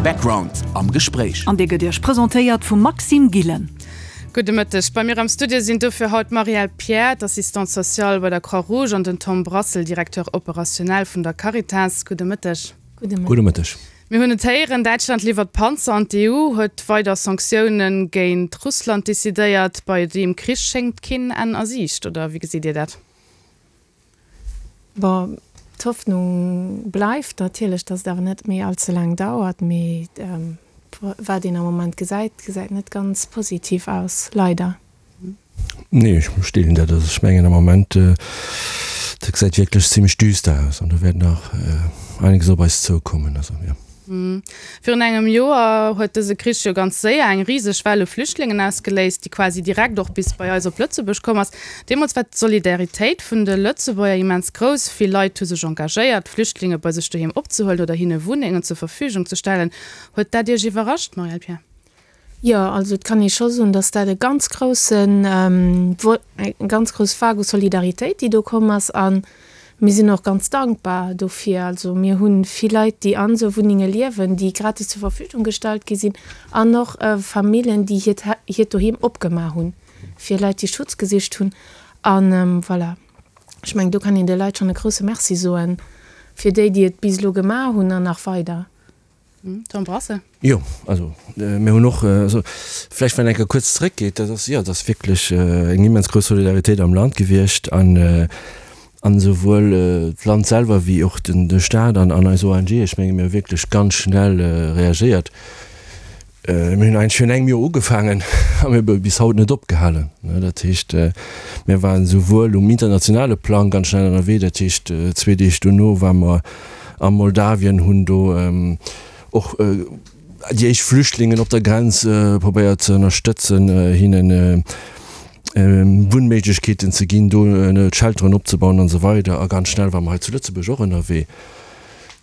Background am Gespréich. An dee gëtt Iech presentéiert vum Maxime Gillen. Gudde Mëtteg. Bei mir am Studio sinn dofir haut d'Marielle Pierre, d'Assistante sociale bei der Croix-Rouge an den Tom Brassel, Directeur opérationnel vun der Caritas. Gudde Mëtteg. Gudde Mëtteg. Mir hunn et héieren, Däitschland liwwert Panzer an d'EU huet weider Sanktioune géint Russland decidéiert. Bei deem Krich schéngt keen Enn a Siicht, oder wéi gesitt Dir dat? Bon, d'Hoffnung bleift natierlech, datt et awer net méi all ze laang dauert. Mee wat een am Moment gesäit, gesäit net ganz positiv aus, leider. Nee, ech deelen dat. Also ech mengen am Moment, dat gesäit wierklech zimmlech düster aus an do wäert nach einiges op eis zoukommen. Also jo. Virun engem Joer huet dëse Krich jo ganz séier eng riseg Well u Flüchtlingen ausgeléist, déi quasi direkt och bis bei eis op Lëtzebuerg komm ass. Deemools war d'Solidaritéit vun de Lëtzebuerger immens grouss. Vill Leit hu sech engagéiert, Flüchtlinge bei sech doheem opzehuelen oder hinne Wunnengen zur Verfügung ze stellen. Huet dat Iech iwwerrascht, Marielle Pierre? Jo, also et kann ee scho soen, datt dat e ganz groussen, eng ganz grouss Vague u Solidaritéit, déi do komm ass. A mir sinn och ganz dankbar dofir. Also mir hu vill Leit, déi an esou Wunnenge liewen, déi gratis zur Verfügung gestallt gi sinn an och Famillen, déi hiert hiert Doheem opgemaach hunn fir Leit, déi Schutz gesicht hunn. A voilà, ech mengen, do kann een de Leit schonn e grousse Merci soen, fir déi, déi et bis elo gemaach hunn an nach weider. Tom Brassel. Jo, also mir hunn och, also vläicht wann een eng Kéier kuerz zeréckgeet, dat ass, jo, dat ass wierklech eng immens grouss Solidaritéit am Land gewiescht an an esouwuel d'Land selwer wéi och den de Staat an an eis ONG, ech menge mir hu wierklech ganz schnell reagéiert. Mir hunn eigentlech virun engem Joer ugefaangen a mir hu bis haut net opgehalen. Dat heescht, mir waren esouwuel um internationale Plang ganz schnell ënnerwee, dat heescht zwee Deeg dono ware mer a Moldawien, hunn do och déi éischt Flüchtlingen op der Grenz probéiert ze ënnerstëtzen, hinnen Wunnméiglechkeeten ze ginn, do Shelteren opzebauen an esou weider. A ganz schnell ware mer hei zu Lëtzebuerg och ënnerwee.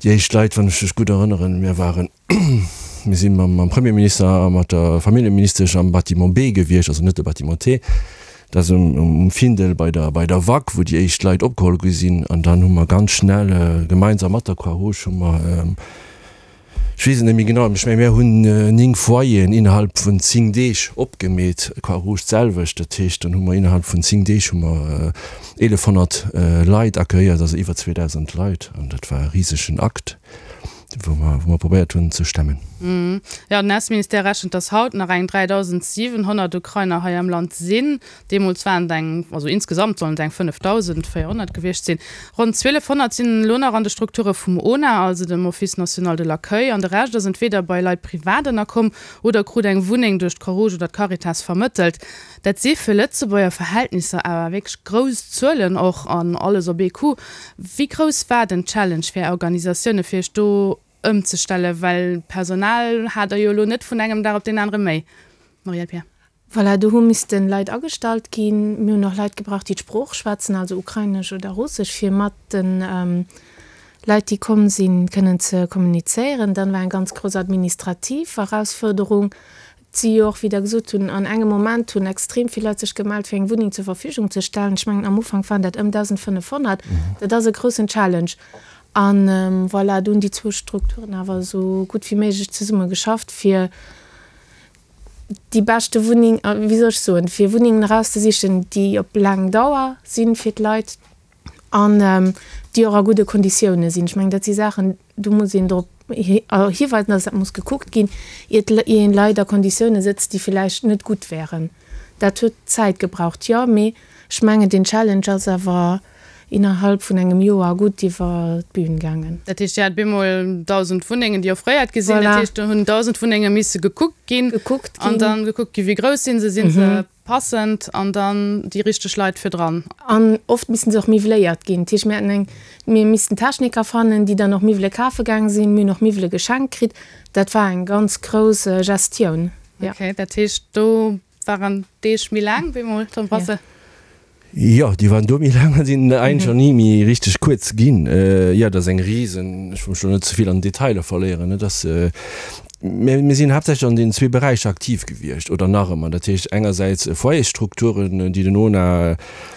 Déi éischt Leit, wann ech mech gutt erënneren, mir waren, Mir si mam Premierminister a mat der Familljeministesch am Bâtiment B gewiescht, also net de Bâtiment T, dat ass um Findel bei der bei der WAK, wou déi éischt Leit opgeholl gi sinn. An dann hu mer ganz schnell gemeinsam mat der Croix-Rouge hu mer, ech weess et net méi genau, ech menge mir hunn 9 Foyeren innerhalb vun 10 Deeg opgemeet, Croix-Rouge d'selwecht. Dat heescht, dann hu mer innerhalb vun 10 Deeg hu mer 1.100 Leit accueilliert, also iwwer 2.000 Leit. An dat war e risegen Akt. Wou mer, wou mer probéiert hunn ze stemmen. Jo, den Ausseministère rechent, datt haut nach eng 3.700 Ukrainer hei am Land sinn. Deemools waren et eng, also insgesamt sollen et eng 5.400 gewiescht sinn. Ronn 1.200 sinn elo nach an de Strukture vum ONA, also dem Office national de l'accueil, an de Rescht ass entweeder bei Leit privat ënnerkomm oder krut eng Wunneng duerch d'Croix-Rouge oder d'Caritas vermëttelt. Dat si fir Lëtzebuerger Verhältnisser awer wierklech grouss Zuelen och, an alles op ee Coup. Wéi grouss war den Challenge fir Är Organisatioune fir Iech do ëmzestellen, well Personal hat Der jo elo net vun engem Dag op deen anere méi, Marielle Pierre? Voilà, do hu missten Leit agestallt ginn. Mir hunn och Leit gebraucht, déi d'Sprooch schwätzen, also Ukrainesch oder Russesch, fir mat de Leit, déi komm sinn, kënnen ze kommunizéieren. Dann war eng ganz grouss administrativ Erausfuerderung, Et si jo och, wéi Der gesot hunn, an engem Moment hunn extrem vill Leit sech gemellt, fir eng Wunneng zur Verfügung ze stellen. Ech mengen, am Ufank waren dat ëm 1.500. Dat ass e groussen Challenge. A voilà, do hunn déi zwou Strukturen awer esou gutt wéi méiglech zesumme geschafft, fir déi beschte Wunneng, wéi soll ech soen, fir Wunnengen erauszesichen, déi op laang Dauer sinn fir d'Leit an déi och a gudde Konditioune sinn. Ech mengen, dat si Saachen, do muss een drop hiweisen, dass dat muss gekuckt ginn, iert een Leit a Konditioune sëtzt, déi villäicht net gutt wären. Dat huet Zäit gebraucht, jo, mee ech mengen, deen Challenge ass awer innerhalb vun engem Joer gutt iwwer d'Bün gaangen. Dat heescht, Dir hat bemol 1.000 Wunnengen, déi offréiert gi sinn. Dat heescht, do hunn 1.000 Wunnenge misse gekuckt ginn an da gekuckt ginn, wéi grouss si se, si se Passend an dann déi richteg Leit fir dran. An oft missten se och miwweléiert ginn. Dat heescht, mir haten eng, mir missten Techniker fannen, déi dann och Miwwele kafe gaang sinn. Mir hunn och Miwwele geschenkt kritt. Dat war eng ganz grouss Gestioun, jo. Okay, dat heescht, do waren d'Deeg méi laang bemol, Tom Brassel? Jo, déi waren do méi laang a sinn eigentlech och ni méi richteg kuerz ginn. Jo, dat ass eng risen, ech wëll mech elo net ze vill an Detailer verléieren, et ass, Mä mir sinn haaptsächlech an deenen zwee Beräicher aktiv gewiescht oder nach ëmmer. Dat heescht engersäits Foyersstrukturen, déi den ONA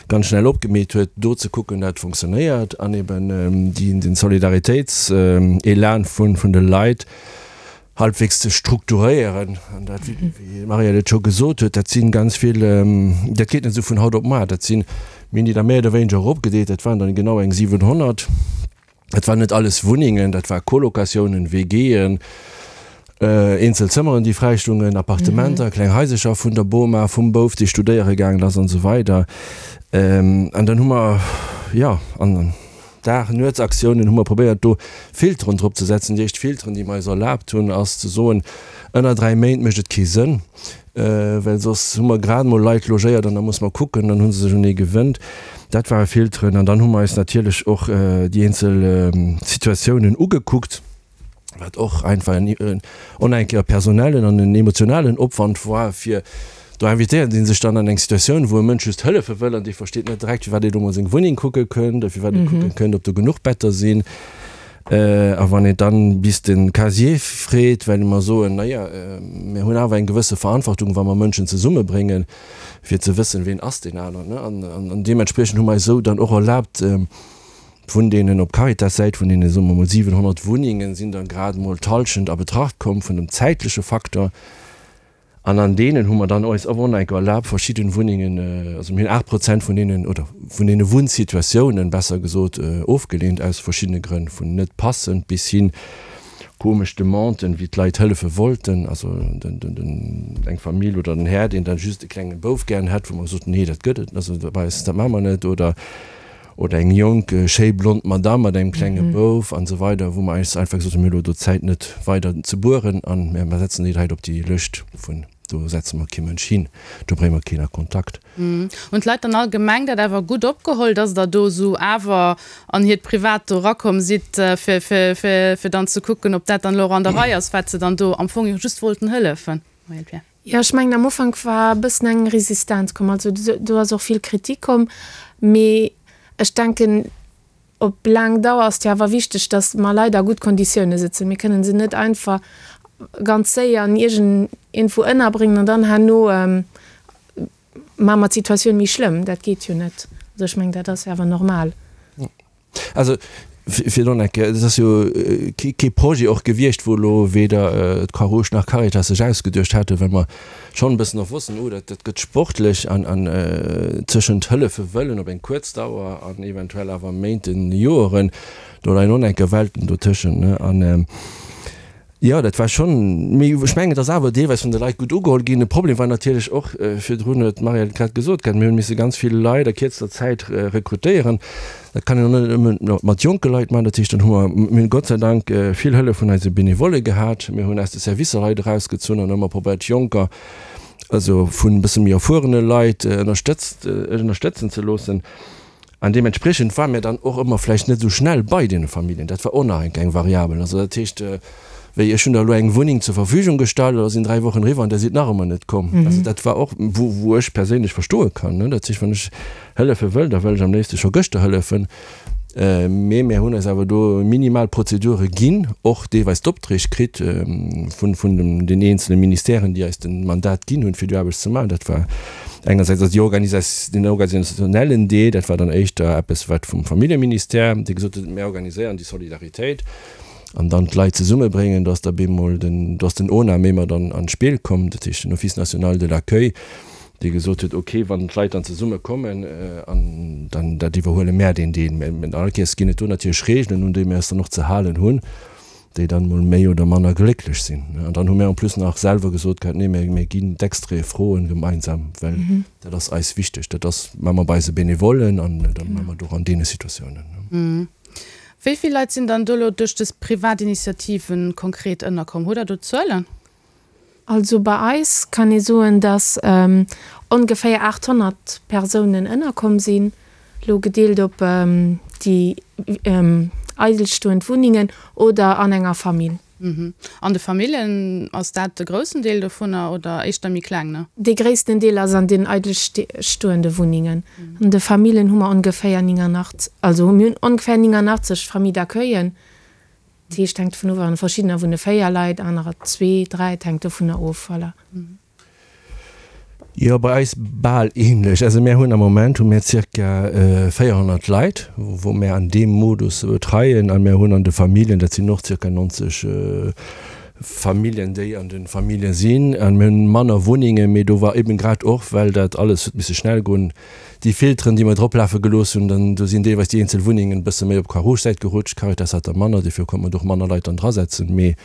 ganz schnell opgemeet huet, do ze kucken, dat fonctionnéiert, an eben déi, den Solidaritéitselan vun, vun de Leit. Halbwegs ze strukturéieren. An dat, wéi d'Marielle et scho gesot huet, dat si ganz vill, dat geet net esou vun haut op mar. Dat sinn, mir hunn déi da méi oder wéineger eropgedeelt, dat waren dann genau eng 700. Dat waren net alles Wunnengen, dat war Colocatiounen, WGen, eenzel Zëmmeren, déi fräistungen, Appartementer, kleng Haisercher vun der Boma, vum Bouf, dee studéiere gaangen ass an esou weider. An dann hu mer, jo, an. Dag-Nuets-Aktiounen hu mer probéiert do Filteren drop ze setzen. Déi éischt Filteren, déi mer eis erlaabt hunn, ass ze soen, ënner 3 Méint mécht et kee Sënn, well soss hu mer grad emol Leit logéiert an da muss mer kucken, dann hu se sech un ee gewënnt. Dat ware Filteren. An dann hu mer eis natierlech och déi eenzel Situatiounen ugekuckt. wat och einfach en onenke personellen an en emotionalen Opwand war, fir do invitéiert ee sech dann an eng Situatioun, wou e Mënsch just hëllefe wëll an dee versteet net direkt, firwat ee do mol seng Wunneng kucke kënnt oder firwat ee kucke kënnt, ob do genuch Better sinn. A wann een dann bis de Casier freet, well mer soen, na ja, mir hunn awer eng gewësse Verantwortung, wa mer Mënschen zesummebréngen, fir ze wëssen, ween ass deen aneren. An deementspriechend hu mer eis esou dann och erlaabt, Vun deenen op Caritas-Säit, vun deene soe mer mol 700 Wunnengen, sinn der grad emol d'Hallschent a Betracht komm vun dem zäitleche Faktor. An an deenen hu mer dann eis och enker erlaabt, verschidden Wunnengen, also mir hunn 8 Prozent vun deenen, oder vun deene Wunnsituatiounen, besser gesot, ofgeleent aus verschiddene Grënn, vun net passend bis hin komesch Demanden, wéi d'Leit hëllefe wollten, also den, eng Famill oder den Här, deen dann just e klenge Bouf gären hätt, wou mer gesot hunn, nee, dat gëtt et, also bei eis, dat maache mer net, oder. Oder eng jonk, schéi blond Madame mat engem klenge Bouf an esou weider, wou mer eis einfach gesot hunn, mir hu lo do Zäit net weider ze bueren an mir setzen déi Leit op déi Lëscht vun do setze mer kee Mënsch hin, do brénge mer keen a Kontakt. Hunn d'Leit dann allgemeng dat awer gutt opgeholl, dass Der do esou awer an hiert Privat do erakomm sidd, fir, fir, fir, fir dann ze kucken, ob dat dann elo och an der Rei ass, wat se dann do am Fong jo just wollten hëllefen? Marielle Pierre. Jo, ech mengen am Ufank war e bëssen eng Resistenz komm, also do ass och vill Kritik komm, mee ech denken op laang Dauer ass et jo awer wichteg, datt mer Leit a gutt Konditioune sëtzen. Mir kënnen se net einfach ganz séier an iergend iergendwou ënnerbréngen an dann herno maache mer d'Situatioun méi schlëmm. Dat geet jo net. Also ech mengen dat ass jo awer normal. Also, fir do nach eng Kéier, et ass jo kee Projet och gewiescht, wou elo weder d'Croix-Rouge nach Caritas sech ausgeduecht haten, well mer schonn e bëssen och wossten, oh, dat gëtt sportlech an tëschent hëllefe wëllen op eng kuerz Dauer an eventuell awer Méinten, Joeren, do leien och nach eng Kéier Welten dotëschent. An Jo, dat war schonn, mee ech mengen, et ass awer deelweis vun de Leit gutt ugeholl ginn. De Problem war natierlech och, virdrun huet d'Marielle et grad gesot gehat, mir hunn misse ganz vill Leit a kierzter Zäit rekrutéieren. Dat kann een och net nëmme mat jonke Leit maachen. Dat heescht, dann hu mer, mir hunn Gott sei Dank vill Hëllef vun eise Benevolle gehat. Mir hunn aus de Servicer Leit erausgezunn an ëmmer probéiert, Jonker, also vun e bësse méi erfuerene Leit ënnerstëtzt, ënnerstëtzen ze loossen. An deementspriechend ware mir dann och ëmmer vläicht net esou schnell bei deene Familljen. Dat war och nach eng kleng Variabel. Also dat heescht, wéi ech hunn der elo eng Wunneng zur Verfügung gestallt, da sinn 3 Wochen eriwwer an der sidd nach ëmmer net komm. Also dat war och, wou, wou ech perséinlech verstoe kann, ne. Dat heescht, wann ech hëllefe wëll, da wëll ech am léifste scho gëschter hëllefen. Mee mir hunn eis awer do minimal Prozedure ginn, och deelweis d'Opträg kritt vun, vun den eenzele Ministèren, déi eis de Mandat ginn hunn, fir déi Aarbecht ze maachen. Dat war engersäits also déi Organisa-, den organisationellen Deel, dat war dann éischter eppes, wat vum Familljeministère, dee gesot huet, mir organiséieren déi Solidaritéit an dann d'Leit zesummebréngen. Do ass da bemol den, do ass den ONA méi mat an, an d'Spill komm, dat heescht den Office national de l'accueil, dee gesot huet, ok, wann d'Leit dann zesumme kommen, an dann dat iwwerhuele mär deen Deel. Mä all Kéiers ginn et do natierlech Regeln, un déi mir eis dann och ze halen hunn, déi dann emol méi oder manner glécklech sinn. An dann hu mär en plus nach selwer gesot gehat, nee, mir ginn d'Extraite froen gemeinsam, well dat ass eis wichteg. Dat ass, maache mer bei eise Benevollen an dat maache mer och an deene Situatiounen. Wéi vill Leit sinn dann do elo duerch dës privat Initiativen konkret ënnerkomm? Hutt Der do Zuelen? Also bei eis kann ee soen, datt ongeféier 800 Persounen ënnerkomm sinn, elo gedeelt op déi eidelstoend Wunnengen oder an enger Famill. An de Famillen, ass dat de groussen Deel dovunner oder éischter méi kleng, ne? Dee gréissten Deel ass an den eidelstoende Wunnengen. An de Famillen hu mer ongeféier 89, also mir hunn ongeféier 89 Familles d'accueillen. Dat heescht, hänkt dovun of, an verschiddener wunne 4 Leit, anerer zwee, dräi, et hänkt dovunner of, voilà. Jo, bei eis bal ähnlech. Also mär hunn am Moment hu mär zirka 400 Leit, wou mär an deem Modus betreien a mär hunn an de Familljen, dat sinn och zirka 90. Familljen, déi an de Famillje sinn. A mir hunn manner Wunnengen, mee do war eben grad och, well dat alles huet misse schnell goen, déi Filteren, déi mer droplafe gelooss hunn, dann do sinn deelweis déi eenzel Wunnengen e bësse méi op d'Croix-Rouge-Säit gerutscht. D'Caritas hat der manner, dofir konnt mer do och manner Leit dann drasetzen. Mee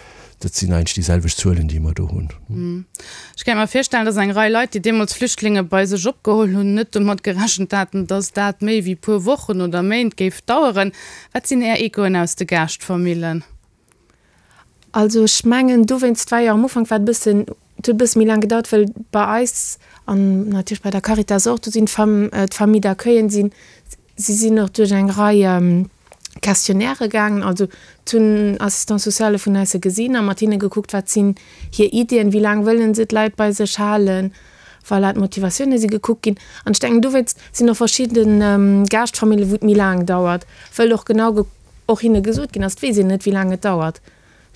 dat sinn eigentlech déi selwecht Zuelen, déi mer do hunn. Ech kéint mer virstellen, dass eng Rei Leit, déi deemools Flüchtlinge bei sech opgeholl hunn, net domat gerechent haten, dass dat méi wéi puer Wochen oder Méint géif daueren. Wat sinn Är Echoen aus de Gaaschtfamillen? Also ech mengen dowéinst war jo am Ufank war et e bëssen, et huet e bësse méi laang gedauert, well bei eis an natierlech bei der Caritas och, do sinn d'Fam, d'Famille d'accueillen sinn, si sinn och duerch eng Rei Questionnairë gaangen, also d'hunn Assistants sociale vun eis se gesinn a mat hinne gekuckt, wat sinn hir Iddien, wéi laang wëllen se d'Leit bei sech halen, voilà, d'Motivatioune si gekuckt ginn. An ech denken dowéinst sinn och verschidde Gaaschtfamillen, wou et méi laang dauert, wëll och genau och hinne gesot ginn ass, et weess een net, wéi laang et dauert.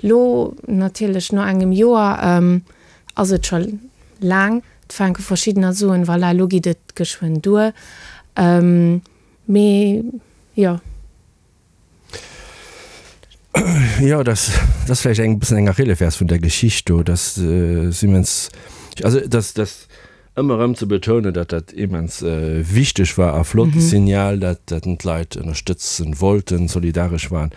Lo natierlech no engem Joer ass et scho laang, et fänke verschiddener soen, voilà, lo geet et geschwënn duer. Mee jo. Jo, dat ass vläicht eng bëssen eng Achillefärs vun der Geschicht do, dass immens, also dass, dass Ëmmer erëm ze betounen, datt dat immens wichteg war a flott Signal, dat dat d'Leit ënnerstëtzen wollten, solidaresch waren.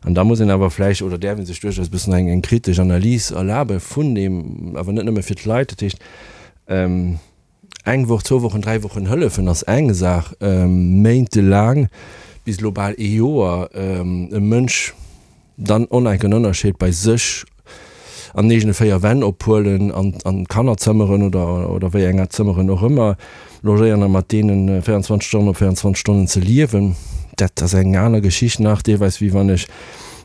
An da muss een awer vläicht, oder däerf ee sech duerchaus e bëssen eng eng kritesch Analys erlabe vun deem, awer net nëmme fir d'Leit. Dat heescht, eng Woch, zwou Wochen, dräi Wochen hëllefen ass eng Saach, méintelaang bis elo bal ee Joer e Mënsch, Dann onenken Ënnerscheed bei sech an den eegene 4 Wänn ophuelen an an d'Kannerzëmmeren oder oder wéi enger Zëmmeren och ëmmer logéieren a mat deenen 24 Stonnen op 24 Stonnen ze liewen, dat ass eng aner Geschicht nach deelweis wéi wann ech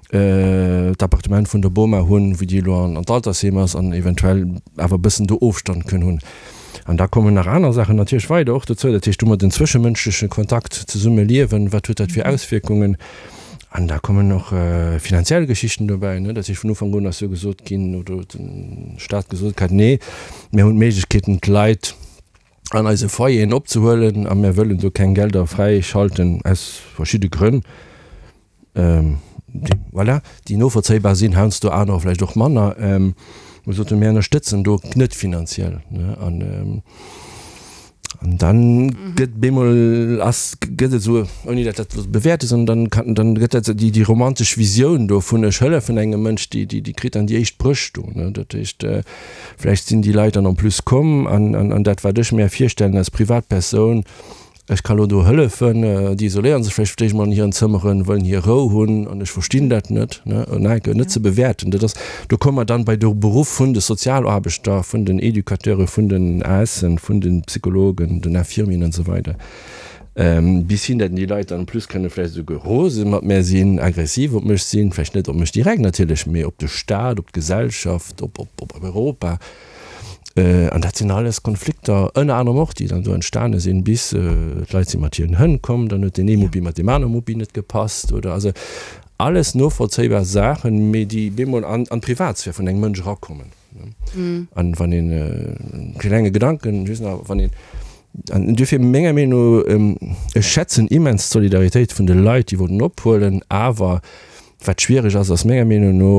d'Appartement vun der Boma hunn, wou déi elo an d'Altersheem ass an eventuell awer e bëssen do Ofstand kënn hunn. An da kommen nach aner Saachen natierlech weider och dozou, dat heescht, hu mer den zwëschemënschleche Kontakt, Zesummeliewen, wat huet dat fir Auswierkungen? An da kommen och finanziell Geschichten dobäi. Dat heescht, vun Ufank un ass jo gesot ginn, oder huet de Staat gesot gehat, Nee, mir hunn d'Méiglechkeeten, d'Leit an eise Foyeren opzehuelen a mir wëllen do keng Gelder fräischalten, aus verschidde Grënn, déi, voilà, déi novollzéibar sinn, heiansdo anerer vläicht och manner. Mir soten, mir ënnerstëtzen do net finanziell. An An dann gëtt bemol ass gëtt et esou, ouni dat dat bewäerte sondern dann kann dann gëtt dat déi déi romantesch Visioun do vun ech hëllefen engem Mënsch, déi déi déi kritt dann déi éischt Bréch do ne. Dat heescht vläicht sinn déi Leit dann en plus komm an an an dat wat ech mär virstellen als Privatpersoun, ech ka lo do hëllefen, déi isoléieren sech vläicht fir d'éischt mol an hiren Zëmmeren, wëllen hir Rou hunn an ech verstinn dat net ne, en net ze bewäerten. Dat ass Do komme mer dann bei de Beruff vun de Sozialaarbechter, vun den Educateure, vun den ASen, vun de Psychologen, den Infirmieren an esou weider, bis hin, datt déi Leit dann en plus kënne vläicht esouguer rose mat mär sinn, aggressiv op mech sinn, vläicht net op mech direkt natierlech, mee op de Staat, op d'Gesellschaft, op Europa. An dat sinn alles Konflikter, ënner anerem och, déi dann do entstane sinn, bis d'Leit si mat hiren Hënn komm, dann huet deen ee Mupp mat deem anere Muppi net gepasst oder also alles novollzéibar Saachen, mee déi bemol an d'Privatsphär vun engem Mënsch erakommen. An wann een e klenge Gedanken just nach, wann een, an duerfir menger Meenung no, ech schätzen immens d'Solidaritéit vun de Leit, déi wollten ophuelen, awer wat schwiereg ass, ass menger Meenung no,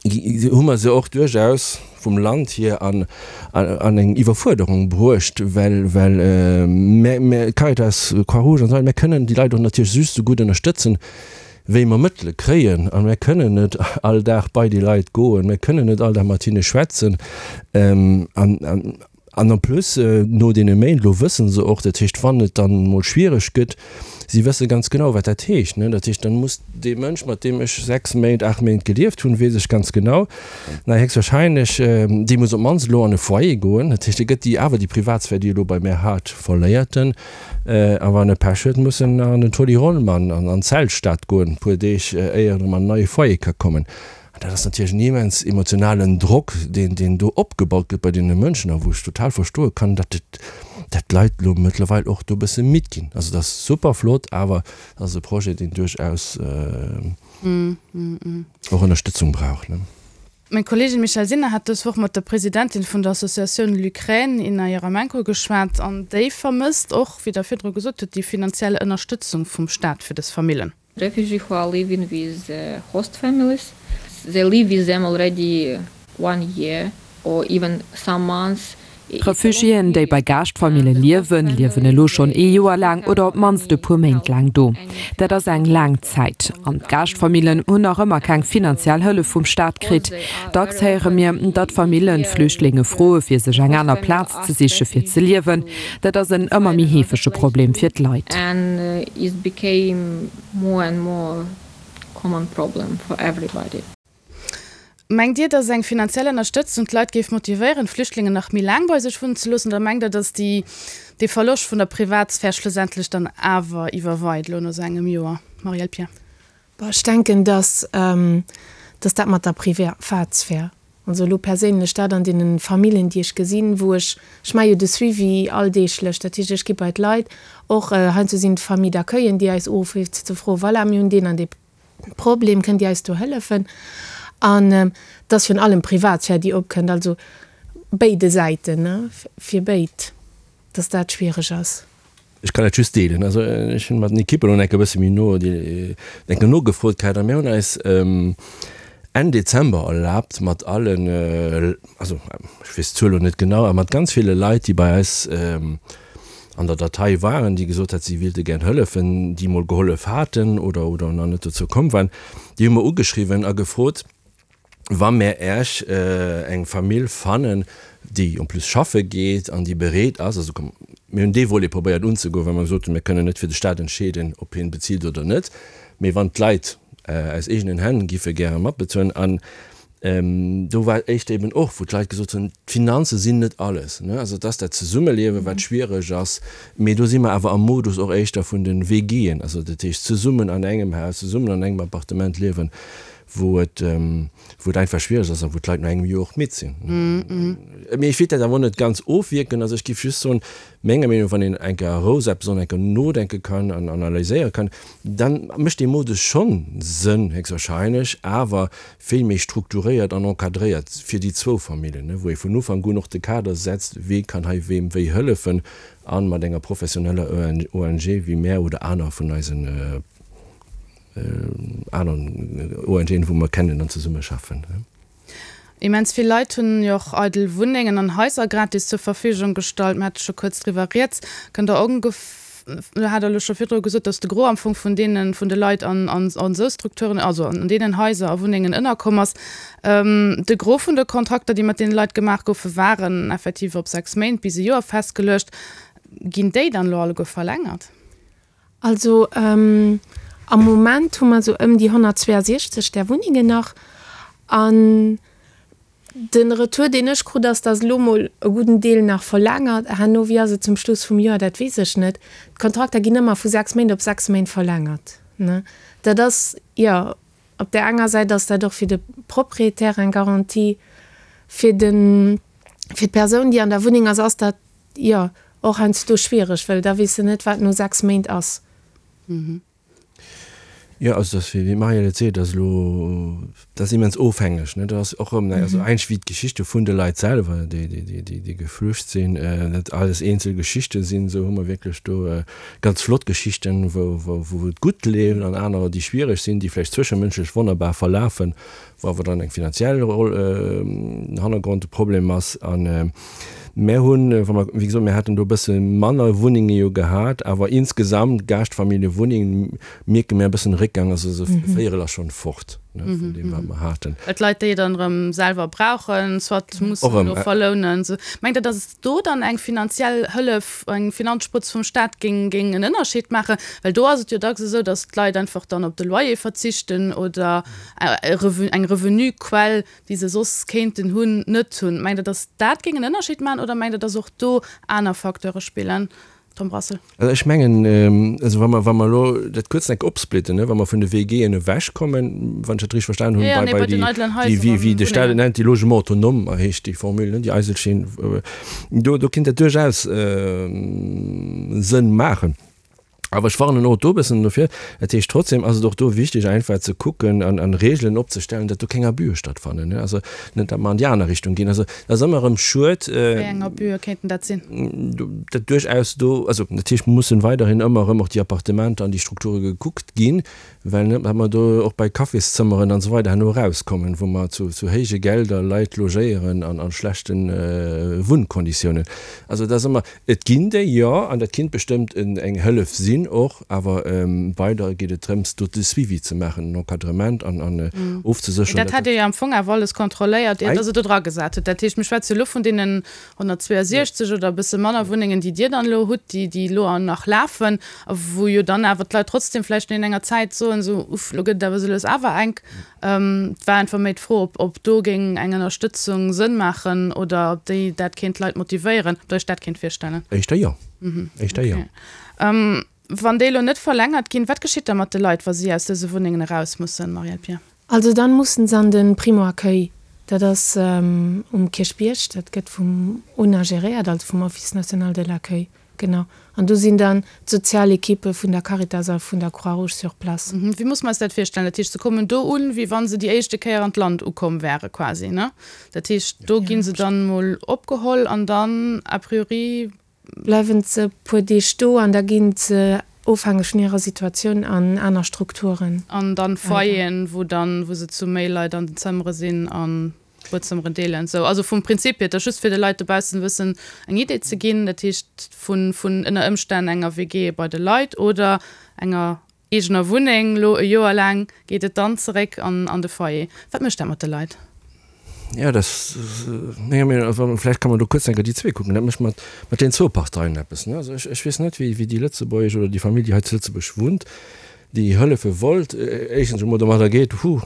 hu mer se och duerchaus vum Land hier an an eng Iwwerfuerderung bruecht, well well mär, mär, Caritas, Croix-Rouge an esou weider, mär kënnen déi Leit och natierlech just esou gutt ënnerstëtzen, wéi mer Mëttele kréien. A mär kënnen net all Dag bei déi Leit goen, mär kënnen net all Dag mat hinne schwätzen. An an An en plus, no deene Méint elo wësse se och, dat heescht, wann et dann emol schwiereg gëtt, si wësse ganz genau, wat dat heescht. Dat heescht, dann muss dee Mënsch, mat deem ech 6 Méint, 8 Méint gelieft hunn, weess ech ganz genau, na héchstwahrscheinlech, dee muss op d'mannst elo an e Foyer goen. Dat heescht, e gëtt déi awer déi Privatsphär, déi e elo bei mär hat, verléiert en. A wann e Pech huet, muss en an den Toni Rollmann an d'Zeltstad goen, e puer Deeg, éier en erëm an en neie Foyer ka kommen. An dat ass natierlech en immens emotionalen Drock, deen, deen do opgebaut gëtt bei deene Mënschen a wou ech total verstoe kann, datt et, datt d'Leit elo mëttlerweil och do e bësse midd ginn. Also dat ass super flott, awer dat ass e Projet, deen duerchaus och Ënnerstëtzung brauch. Meng Kolleegin Michèle Sinner hat dës Woch mat der Presidentin vun der Associatioun LUkraine, Inna Jeremenko, geschwat an déi vermësst och, wéi Der virdru gesot hutt, déi finanziell Ënnerstëtzung vum Staat fir dës Famillen. Refugee who are living with host families. they live with them already one year or even some months. Refugiéen, déi bei Gaaschtfamille liewen, liewen elo schonn ee Joer laang oder op d'mannst e puer Méint laang do. Dat ass eng laang Zäit. An d'Gaaschtfamillen hunn nach ëmmer keng finanziell Hëllef vum Staat kritt. Dacks héiere mir, datt Famillen d'Flüchtlinge froe fir sech eng aner Plaz ze siche fir ze liewen. Dat ass en ëmmer méi heefege Problem fir d'Leit. Common problem for everybody. Mengt Dir, datt eng finanziell Ënnerstëtzung d'Leit géif motivéieren, d'Flüchtlingen nach méi laang bei sech wunnen ze loossen, oder mengt Der, datt déi, dee Verloscht vun der Privatsphär schlussendlech dann awer iwwerweit elo no esou engem Joer? Marielle Pierre. Bon, ech denken, datt, datt dat mat der Privatsphär, also elo perséinlech dat an deene Familljen, déi ech gesinn, wou ech, ech maache jo de Suivi alldeeglech, dat heescht, ech gi bei d'Leit, och heiansdo sinn et Famille d'accueillen, déi eis uruffen, fir ze froen, voilà, mir hunn deen an dee Problem, kënnt Dir eis do hëllefen? An et ass virun allem Privatsphär, déi opkënnt, also béide Säiten, ne, fir béid, dass dat schwiereg ass. Ech kann dat just deelen. Also ech hunn mat den Ekippen elo enke bësse méi no déi enke nogefrot gehat a mir hunn eis Enn Dezember erlaabt mat allen, also ech weess d'Zuel elo net genau, awer mat ganz ville Leit, déi bei eis an der Datei waren, déi gesot hat, si wéilte gär hëllefen, déi mol gehollef haten oder oder nach net dozou komm waren, déi hu mer ugeschriwwen a gefrot, wa mär Äech eng Famill fannen, déi en plus schaffe geet an déi bereet ass, also komm, mir hunn dee Volet probéiert unzegoen, well mer gesot hunn, mir kënnen net fir de Staat entscheeden, ob hien bezilt oder net, mee wann d'Leit aus eegenen Hänn giffe gäre matbezuelen. An do war éischter eben och, wou d'Leit gesot hunn, d'Finanze sinn net alles, ne, also et ass dat Zesummeliewen, wat schwiereg ass, mee do si mer awer am Modus och éischter vun de WGen, also dat heescht zesummen an engem Haus, zesummen an engem Appartement liewen, wou et, wou et einfach schwiereg ass a wou d'Leit no engem Joer och midd sinn. Mee ech wéilt dat awer och net ganz ofwierken. Also ech géif just soen, menger Meenung no, wann een eng Kéier a Rou eppes och eng Kéier nodenke kann an analyséiere kann, da mécht dee Modus schonn Sënn, héchstwahrscheinlech, awer vill méi strukturéiert an encadréiert fir déi zwou Familljen, wou ee vun Ufank un och de Kader setzt, wee kann hei weem wéi hëllefen a mat enger professioneller ONG wéi mär oder aner vun eisen Aneren ONGen, wou mer kennen an zesummeschaffen. Immens vill Leit hunn jo och eidel Wunnengen an Haiser gratis zur Verfügung gestallt. Mir hate scho kuerz driwwer rieds. Kënnt Der ongef, Der hat elo scho virdru gesot, datt de Gros am Fong vun deene vun de Leit an an esou Strukturen, also an deenen Haiser a Wunnengen ënnerkomm ass. De Gros vun de Kontrakter, déi mat deene Leit gemaach goufen, waren effektiv op 6 Méint bis e Joer festgeluecht. Ginn déi dann elo alleguer verlängert? Also am Moment hu mer esou ëm déi 162 där Wunnengen nach. An de Retour, deen ech krut, ass, datt elo mol e gudden Deel nach verlängert. Herno, wéi ass et zum Schluss vum Joer, dat weess ech net. D'Kontrakter ginn ëmmer vu 6 Méint op 6 Méint verlängert. Dat ass, jo, op där enger Säit ass dat och fir de Propriétaire eng Garantie, fir de, fir d'Persoun, déi an der Wunneng ass, ass dat Jo, och heiansdo schwiereg, well da weess de net, wat no 6 Méint ass. Jo, also dass, wéi d'Marielle et seet, ass elo, dat ass immens ofhängeg, ne. Dat ass och erëm, also eigentlech wéi d'Geschichte vun de Leit selwer, déi, déi, déi, déi geflücht sinn, dat alles eenzel Geschichte sinn, esou hu mer wierklech do ganz flott Geschichten, wou, wou, wou et gutt leeft an anerer, déi schwiereg sinn, déi vläicht zwëschemënschlech wonnerbar verlafen, wou awer dann eng finanziell Roll, Hannergrond de Problem ass. An Mär hunn, wa mer, wéi gesot, mir haten do e bësse manner Wunnenge jo gehat, awer insgesamt Gaaschtfamilljewunnengen mierke mir e bëssen Réckgang, also esou e Véierel ass schonn fort, ne, vun deem wat mer haten. Well d'Leit déi dann erëm selwer brauchen, soit mussen elo verlounen. Mengt Der, datt do dann eng finanziell Hëllef, eng Finanzsprëtz vum Staat géing géing en Ënnerscheed maachen? Well do ass et jo dacks esou, datt d'Leit einfach dann op de Loyer verzichten oder eng Revenuquell déi se soss kéinten hunn, net hunn. Mengt Der, datt dat géing en Ënnerscheed maachen oder mengt Der, datt och do aner Facteure spillen? Tom Brassel. Also ech mengen, also wa mer, wa mer elo dat kuerz enk opsplitten, ne, wa mer vun de WGen ewechkommen, wann ech dat richteg verstanen hunn, bei, bei déi, déi, wéi, wéi de Staat et nennt, déi Logements autonomes heescht déi Formule, ne, déi Eiselchen, do, do kéint dat duerchaus Sënn maachen. Awer ech warnen och do e bëssen dofir. Dat heescht, trotzdem ass et och do wichteg einfach ze kucken an an Regeln opzestellen, datt do keng Abüe stattfannen, ne. Also net, datt mer an déi aner Richtung ginn. Also dat ass ëmmer erëm schued. Wéi eng Abüe kéinten dat sinn? Datt duerchaus do, also natierlech mussen weiderhin ëmmer erëm och déi Appartementer an déi Strukture gekuckt ginn, well net, datt mer do och bei Cafészëmmeren an esou weider herno erauskommen, wou mer zu zu héije Gelder Leit logéieren an a schlechte Wunnkonditiounen. Also dat ass ëmmer. Et ginn déi, jo, an dat kinnt bestëmmt eng Hëllef sinn och, awer weider geet et drëms, do de Suivi ze maachen, den Encadrement an ofzesécheren, Dat hat Dir jo am Fong awer alles kontrolléiert, ier Der se do dragesat hutt. Dat heescht, mir schwätze jo elo vun deenen 162 oder e bësse manner Wunnengen, déi Dir dann elo hutt, déi déi elo nach lafen a wou jo dann awer d'Leit trotzdem vläicht no enger Zäit soen, esou, Uff, elo gëtt et awer esou lues awer enk. Et war einfach méi d'Fro, ob ob do géing eng Ënnerstëtzung Sënn maachen oder ob déi dat kéint d'Leit motivéieren, ob Der Iech dat kéint virstellen. Éischter jo. Éischter jo. Wann déi elo net verlängert ginn, wat geschitt da mat de Leit, wa si aus dëse Wunnengen eraus mussen, Marielle Pier? Also dann mussen se an de Primo-Accueil. Dat ass um Kierchbierg, dat gëtt vum ona geréiert, also vum Office national de l'accueil. Genau. An do sinn dann d'Sozialequippe vun der Caritas a vun der Croix-Rouge sur place. Wéi muss mer eis dat virstellen? Dat heescht, se kommen do un, wéi wa se déi éischte Kéier an d'Land ukomm wäre quasi, ne? Dat heescht, do gi se dann emol opgeholl an dann a priori. Bleiwen se e puer Deeg do an da gi se, ofhängeg vun hirer Situatioun, an aner Strukturen. An dann Foyeren, wou dann, wou se zu méi Leit an den Zëmmere sinn an. Buedzëmmeren deelen. Sou, also vum Prinzip hier, et ass just fir de Leit dobaussen e bëssen eng Idee ze ginn, dat heescht vun, vun ënner Ëmstänn enger WG bei de Leit oder enger eegener Wunneng lo e Joer laang, geet et dann zeréck an, an de Foyer. Wat mécht dat mat de Leit? Jo, dat ass menger Meenung no, vläicht kann mer do kuerz eng Kéier déi zwee kucken, dat mécht mat, mat deenen zwou Parteien eppes, ne. Also ech, ech weess net, wéi, wéi déi lëtzebuergesch oder déi Famill, déi hei zu Lëtzebuerg wunnt, déi hëllefe wollt, éischtens emol domadder geet, Huh,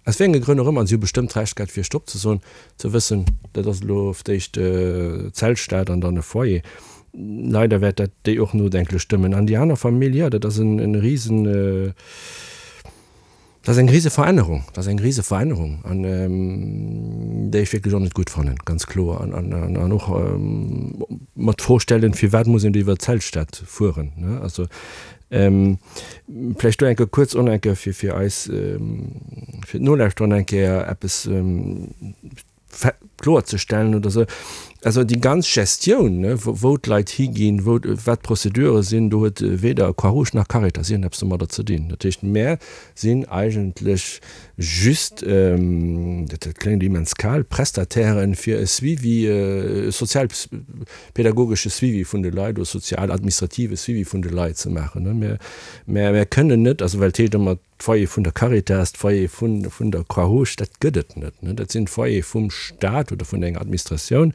Aus wéi enge Grënn och ëmmer, an si hu bestëmmt d'Recht gehat fir Stopp ze soen, ze wëssen, dat ass elo op d'éischt Zeltstad an dann e Foyer. Leider wäert dat déi och nodenklech stëmmen. An déi aner Famill, jo, dat ass en risen, dat ass eng rise Verännerung, dat ass eng rise Verännerung an déi ech wierklech och net gutt fannen, ganz kloer. An och mer d'Fro stellen, firwat muss een do iwwer d'Zeltstad fueren, ne? Also Vläicht do eng Kéier kuerz och eng Kéier fir, fir eis, fir d'Nolauschterer eng Kéier eppes kloerzestellen oder esou. Also déi ganz Gestioun, ne, wou d'Leit higinn, wou, wat d'Prozedure sinn, do huet weder Croix-Rouge nach Caritas iergendeppes domadder ze dinn. Dat heescht, mär sinn eigentlech just, dat kléngt immens kal, Prestatairen fir e Suivi, e sozial, pädagogesche Suivi vun de Leit oder sozial-administrative Suivi vun de Leit ze maachen. Mä mär kënnen net, also well et heescht ëmmer d'Foyer vun der Caritas, d'Foyer vun vun der Croix-Rouge, dat gëtt et net. Dat sinn d'Foyere vum Stat oder vun enger Administratioun,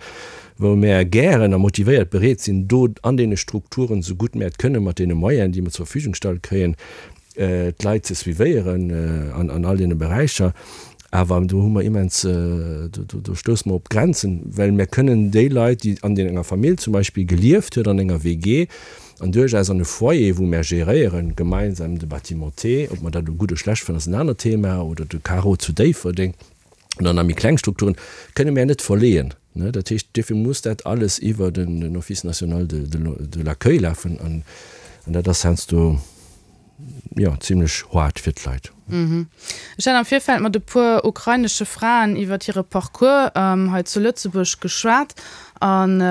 wou mär gären a motivéiert bereet sinn, do an deene Strukturen, esou gutt mär et kënnen, mat deene Moyenen, déi mer zur Verfügung gestallt kréien, d'Leit ze suivéieren an all deene Beräicher. Awer do hu mer immens, do stousse mer op Grenzen, well mir kënnen déi Leit, déi an enger Famill zum Beispill gelieft huet, an enger WG an duerchaus an e Foyer, wou mer geréieren, gemeinsam de Bâtiment T, ob mer dat elo gutt oder schlecht fannen, ass en anert Thema, oder de Carreau zu Déifferdeng oder nach méi kleng Strukturen, kënne mer net verleeën. Dat heescht, duerfir muss dat alles iwwer den Office national de l'accueil lafen an dat ass heiansdo, jo, zimlech hard fir d'Leit. Ech hat am Virfeld mat e puer ukrainesche Fraen iwwert hire Parcours hei zu Lëtzebuerg geschwat an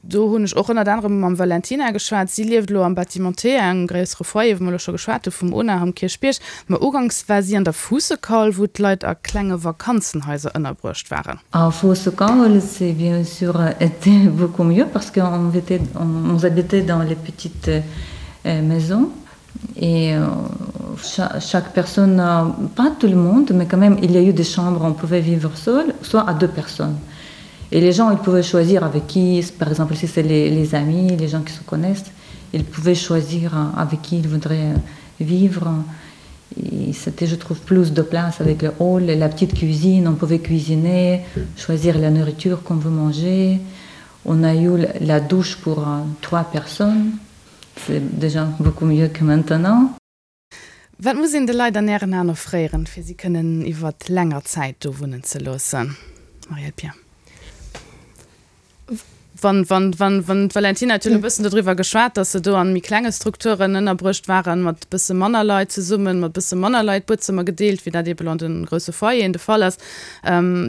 do hunn ech och ënnert anerem mam Valentina geschwat. Si lieft elo am Bâtiment T, engem gréissere Foyer, wou mer elo scho geschwat hu vum ONAH am Kierchbierg. Ma uganks war si an der Fuussekaul, wou d'Leit a klenge Vakanzenhaiser ënnerbruecht waren. A Fuussekaul, c'est bien sûr été beaucoup mieux parce qu'on était, on habitait dans les petites maison et chaque personne pas tout le monde mais quand même il y a eu des chambres on pouvait vivre seul soit à deux personnes et les gens ils pouvaient choisir avec qui par exemple si c'est les, les amis les gens qui se connaissent ils pouvaient choisir avec qui ils voudraient vivre et c'était je trouve plus de place avec le hall et la petite cuisine on pouvait cuisiner choisir la nourriture qu'on veut manger on a eu la douche pour trois personnes C'est déjà beaucoup mieux que maintenant. Wat muss een de Leit an Ären Aen offréieren, fir si kënnen iwwert länger Zäit do wunnen ze loossen? Marielle Pier. Wann, wann, wann, wann d'Valentina huet jo elo e bëssen dodriwwer geschwat, datt se do an méi klenge Strukturen ënnerbruecht waren, mat e bësse manner Leit zesummen, mat e bësse manner Leit Buedzëmmer gedeelt, wéi dat eeben an de grousse Foyeren de Fall ass.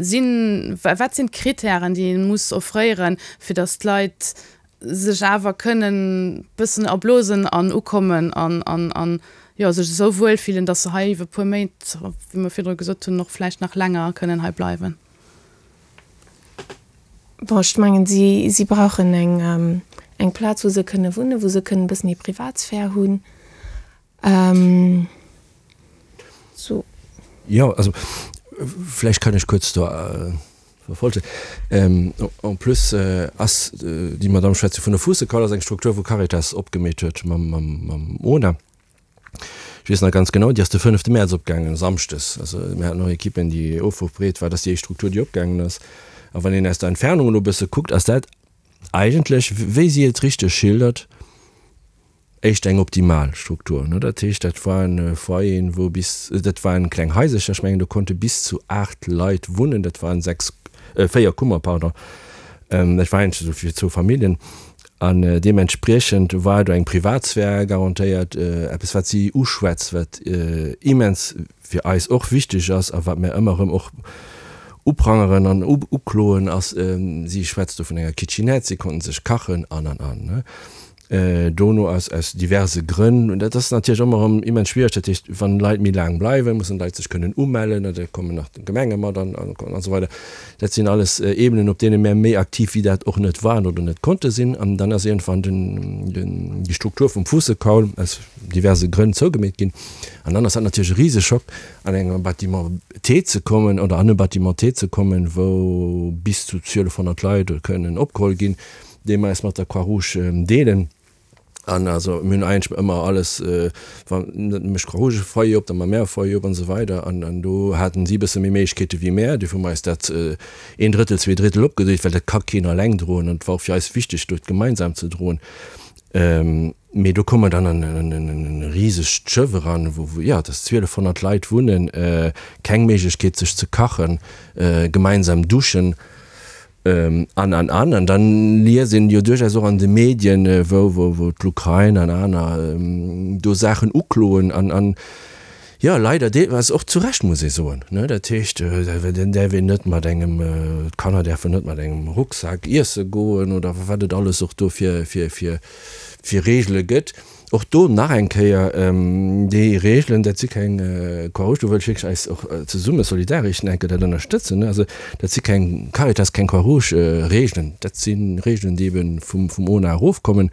Sinn, wat sinn d'Kritären, déi ee muss offréieren, fir datt d'Leit sech awer kënnen bëssen erblosen an ukommen an, an, an, jo, sech esou wuel fillen, datt se hei iwwer e puer Méint, wéi mer virdru gesot hunn, och vläicht nach länger kënnen hei bleiwen? Bon, ech mengen, si, si brauchen eng, eng Plaz, wou se kënne wunnen, wou se kënnen e bëssen hir Privatsphär hunn. Sou. Jo, also vläicht kann ech kuerz do verfolgen. En plus ass déi Madamm schwätzt jo vun der Fuussekaul, ass eng Struktur, wou Caritas opgemeet huet mam, mam, mam ona. Ech weess nach ganz genau, déi ass de fënnefte Mäerz opgaangen, samschdes. Also mir haten och Ekippen, déi ofrufbereet war. Dat ass déi éischt Struktur, déi opgaangen ass. A wann een aus der Entfernung elo e bësse kuckt, ass dat eigentlech, wéi si et richteg schildert, éischter eng optimal Struktur. Dat heescht, dat waren Foyeren, wou bis, dat waren kleng Haisercher, ech mengen do konnte bis zu 8 Leit wunnen, dat waren 6, 4 Kummer, pardon, dat war eigentlech esou fir zwou Familljen. An deementspriechend war do eng Privatsphär garantéiert, eppes wat si uschwätzt, wat immens fir eis och wichteg ass a wat mär ëmmer erëm och uprangeren an ukloen, ass, si schwätzt do vun enger Kitchenette, si konnten sech kachen an an an. Dono aus aus diverse Grënn, dat ass natierlech ëmmer erëm immens schwiereg, dat heescht, wann Leit méi laang bleiwen, mussen d'Leit sech kënnen umellen, da kommen nach d'Gemenge mat an an esou weider. Dat sinn alles Ebenen, op deene mär méi aktiv wéi dat och net waren oder net konnte sinn. An dann ass iergendwann den den déi Struktur vum Fuussekaul aus diverse Grënn zougemeet ginn. An dann ass dat natierlech e Riseschock, an engem Bâtiment T ze kommen oder an e Bâtiment T ze kommen, wou bis zu 1.200 Leit kënnen opgeholl ginn, dee mer eis mat der Croix-Rouge deelen. An also mir hunn eigentlech ëmmer alles, wann net mécht d'Croix-Rouge e Foyer op, da ma mär e Foyer op an esou weider. An an do haten si e bësse méi Méiglechkeete wéi mär. Duerfir hu mer eis dat een Drëttel, zwee Drittel opgedeelt, well dat ka keen alleng droen. An et war och fir eis wichteg, do gemeinsam ze droen. Mee do komme mer dann an en risegt Schëff eran, wou, jo, dass 1.200 Leit wunnen, keng Méiglechkeet sech ze kachen, gemeinsam duschen. An, an, an. An dann liest een jo duerchaus och an de Medien, wou, wou, wou d'Lukrain an aner do Saachen ukloen an, an, jo, leider deelweis och zu Recht, muss ee soen, ne. Dat heescht, den däerf een net mat engem, d'Kanner däerfen net mat engem Rucksak iesse goen oder wat et alles och do fir, fir, fir, fir Regele gëtt. Och do nach eng Kéier, déi Regelen, dat si keng Croix-Rouge, do wëll ech wierklech eis och zesumme solidaresch enke dat ënnerstëtzen, also dat si keng Caritas, keng Croix-Rouge-Regelen, dat si Regelen, déi ebe vum ona erofkommen,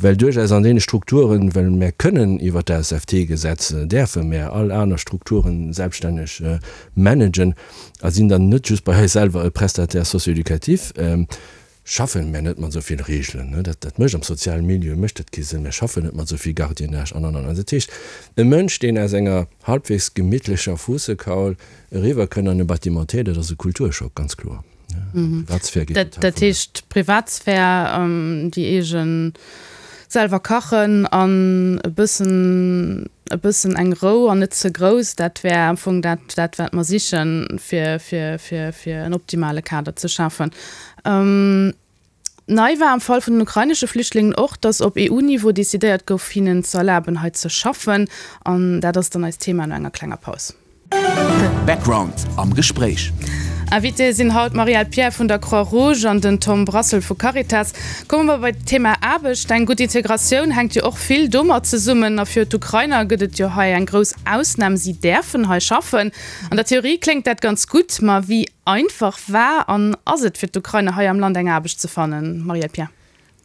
well duerchaus an deene Strukturen, well mär kënnen iwwert d'ASFT-Gesetz, däerfe mär all aner Strukturen selbststänneg managen a sinn dann net just bei eis selwer e Prestataire socio-éducatif. Schaffen mär net mat esou vill Reegelen, ne, dat, dat mécht am sozialen Milieu mécht dat kee Sënn, mär schaffen net mat esou vill Gardiennage an, an, an. Also dat heescht, e Mënsch, deen aus enger halbwegs gemittlecher Fuussekaul eriwwer kënnt an e Bâtiment T, dat ass e Kulturschock, ganz kloer. D'Privatsphär geet total Dat verluer. heescht, d'Privatsphär, déi eegen, selwer kachen an e bëssen, e bëssen eng Rou an net ze grouss, dat wär am Fong dat, dat wat mer sichen, fir, fir, fir, fir en optimale Kader ze schafen. Nei war am Fall vun den ukrainesche Flüchtlingen och, datt op EU-Niveau decidéiert gouf, hinnen ze erlaben, hei ze schaffen. An dat ass dann eist Thema no enger klenger Paus. Background am Gespréich. Invitéë sinn haut d'Marielle Pierre vun der Croix-Rouge an den Tom Brassel vu Caritas. Komme mer bei d'Thema Aarbecht. Eng gutt Integratioun hänkt jo och vill domat zesummen. A fir d'Ukrainer gëtt et jo hei eng grouss Ausnam, si däerfen hei schaffen. An der Theorie kléngt dat ganz gutt, ma wéi einfach war an ass et fir d'Ukrainer hei am Land eng Aarbecht ze fannen, Marielle Pierre?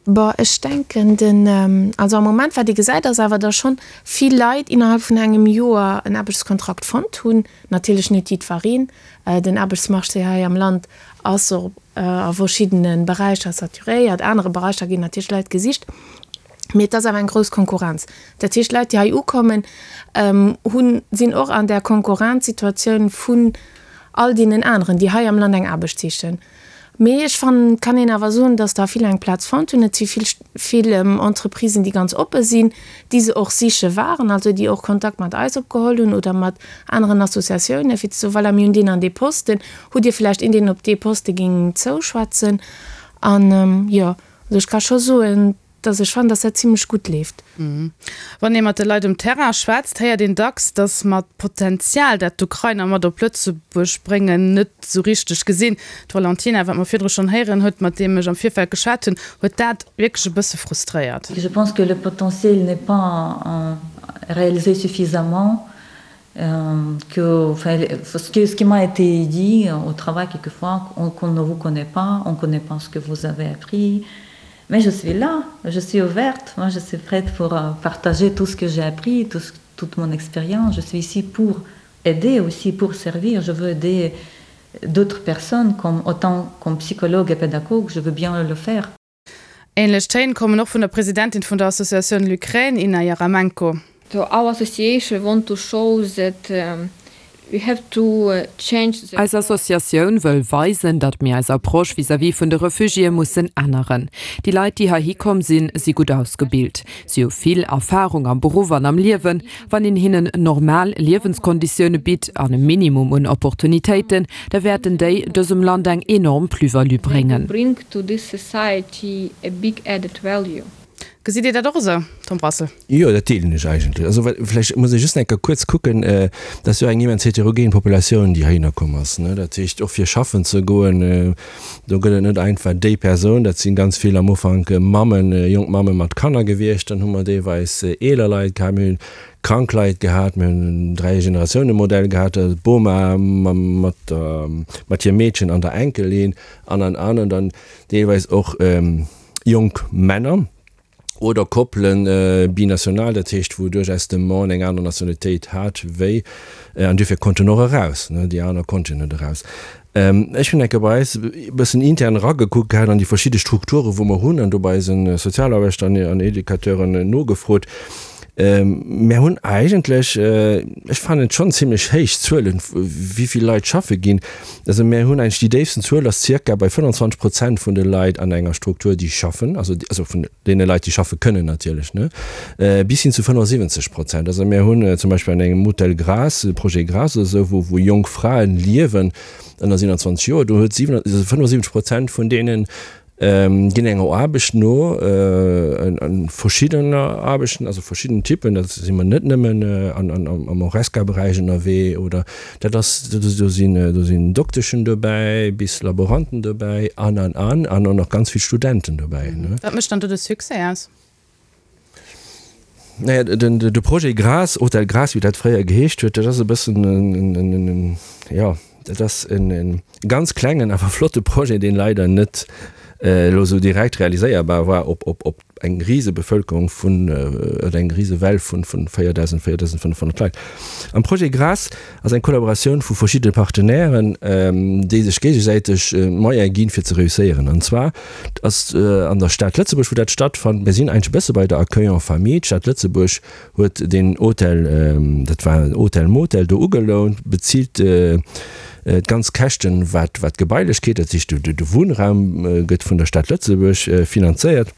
Bon, ech denken den, also am Moment wat ee gesäit ass awer, datt schonn vill Leit innerhalb vun engem Joer en Aarbechtskontrakt fonnt hunn. Natierlech net jiddwereen. Den Aarbechtsmarché hei am Land ass och a verschiddene Beräicher saturéiert, anere Beräicher ginn natierlech Leit gesicht. Mee et ass awer eng grouss Konkurrenz. Dat heescht, d'Leit, déi hei ukommen, hunn, sinn och an där Konkurrenzsituatioun vun all deenen aneren, déi hei am Land eng Aarbecht sichen. Mee ech fannen, et kann een awer soen, datt der vill eng Plaz fonnt hunn. Et si vill, vill Entreprisen, déi ganz oppe sinn, déi se och siche waren, also déi och Kontakt mat eis opgeholl hunn oder mat aneren Associatiounen, fir ze soen, voilà, mir hunn deen an dee Posten, hutt Dir vläicht een, deen op dee Poste géing zouschwätzen? An jo, also ech ka scho soen, dass ech fannen, dass dat zimlech gutt leeft. Wann ee mat de Leit um Terrain schwätzt, héiert een dacks, datt mer d'Potenzial, dat d'Ukrainer mat op Lëtzebuerg bréngen, net esou richteg gesinn. D'Valentina, wat mer virdru schonn héieren huet, mat deem ech am Virfeld geschwat hunn, huet dat wierklech e bësse frustréiert. Je pense que le potentiel n'est pas réalisé suffisamment que enfin, ce, que, ce qui m'a été dit au travail quelquefois qu'on ne vous connaît pas, on ne connaît pas ce que vous avez appris. Mais je suis là, je suis ouverte, moi je suis prête pour euh, partager tout ce que j'ai appris, tout ce, toute mon expérience. Je suis ici pour aider aussi, pour servir. Je veux aider d'autres personnes comme autant comme psychologue et pédagogue, je veux bien le faire. Ähnlech Téin kommen och vun der Presidentin vun der Associatioun L'Ukraine, Inna Jaremenko. So our association want to show that we have to change the. Eis Associatioun wëll weisen, datt mir eis Approche vis-à-vis vun de Refugiéë mussen änneren. Déi Leit, déi heihi komm sinn, si gutt ausgebilt. Si hu vill Erfarung am Beruff an am Liewen. Wann een hinnen normal Liewenskonditioune bitt an e Minimum un Opportunitéiten, da wäerten déi dësem Land eng enorm Plus-value bréngen. Gesitt Dir dat och esou, Tom Brassel? Jo, dat deelen ech eigentlech. Also vläicht muss ee just eng Kéier kuerz kucken, dat ass jo eng immens heterogen Populatioun, déi heihinner komm ass. Dat heescht, och fir schaffen ze goen, do gëtt et net einfach déi Persoun, dat si ganz vill am Ufank Mammen, jonk Mamme mat Kanner gewiescht, dann hu mer deelweis eeler Leit gehat, mir hunn krank Leit gehat, mir hunn en Dräigeneratiounemodell gehat, d'Boma mat der, mat hirem Meedchen an der Enkelin an an an an dann deelweis och jonk Männer. Oder Koppelen binational, dat heescht wou duerchaus de Mann eng aner Nationalitéit hat wéi, an duerfir konnt en och eraus, déi aner konnten net eraus. Ech hunn eng Kéier bei eis e bëssen intern eragekuckt gehat an déi verschidde Strukture wou mer hunn an do bei eise Sozialaarbechter an Educateuren nogefrot. Mär hunn eigentlech, ech fannen et schonn zimlech héich Zuelen, wéi vill Leit schaffe ginn. Also mär hunn eigentlech déi déifsten Zuel ass zirka bei 25 Prozent vun de Leit an enger Struktur, déi schaffen, also also vun deene Leit, déi schaffe kënnen natierlech, ne, bis hin zu 75 Prozent. Also mär hunn zum Beispill an engem Hotel Graas, Projet Graas oder esou, wou wou jonk Fraen liewen ënner 27 Joer, do huet 75 Prozent vun deenen Ginn enger Aarbecht no, verschiddener Aarbechten, also verschidden Typen, da si mer net nëmmen am Horesca-Beräich ënnerwee oder dat ass, do sinn, do sinn Dokteschen dobäi bis Laboranten dobäi an, an, an, an och nach ganz vill Studenten dobäi. Wat mécht dann do de Succès aus? Naja, den, de Projet Graas, Hotel Graas, wéi dat fréier geheescht huet, dat ass e bëssen en, en, en, jo, dat ass en, en ganz klengen, awer flotte Projet, deen leider net elo esou direkt realiséierbar war op, op, op eng Risebevölkerung vun, oder eng Risewell vun, vun 4.000, 4.500 Leit. Am Projet Graas ass eng Kollaboratioun vu verschiddene Partenairen, déi sech géigesäiteg d'Moyene ginn, fir ze reusséieren. An zwar ass an der Stad Lëtzebuerg, wou dat stattfand. Mir sinn eigentlech e bësse bei der Accueil en famille. D'Stad Lëtzebuerg huet deen Hotel, dat war en Hotel-Motel, do ugelount, bezilt d'ganz Käschten, wat d'Gebailechkeet, dat heescht de Wunnraum gëtt vun der Stad Lëtzebuerg finanzéiert.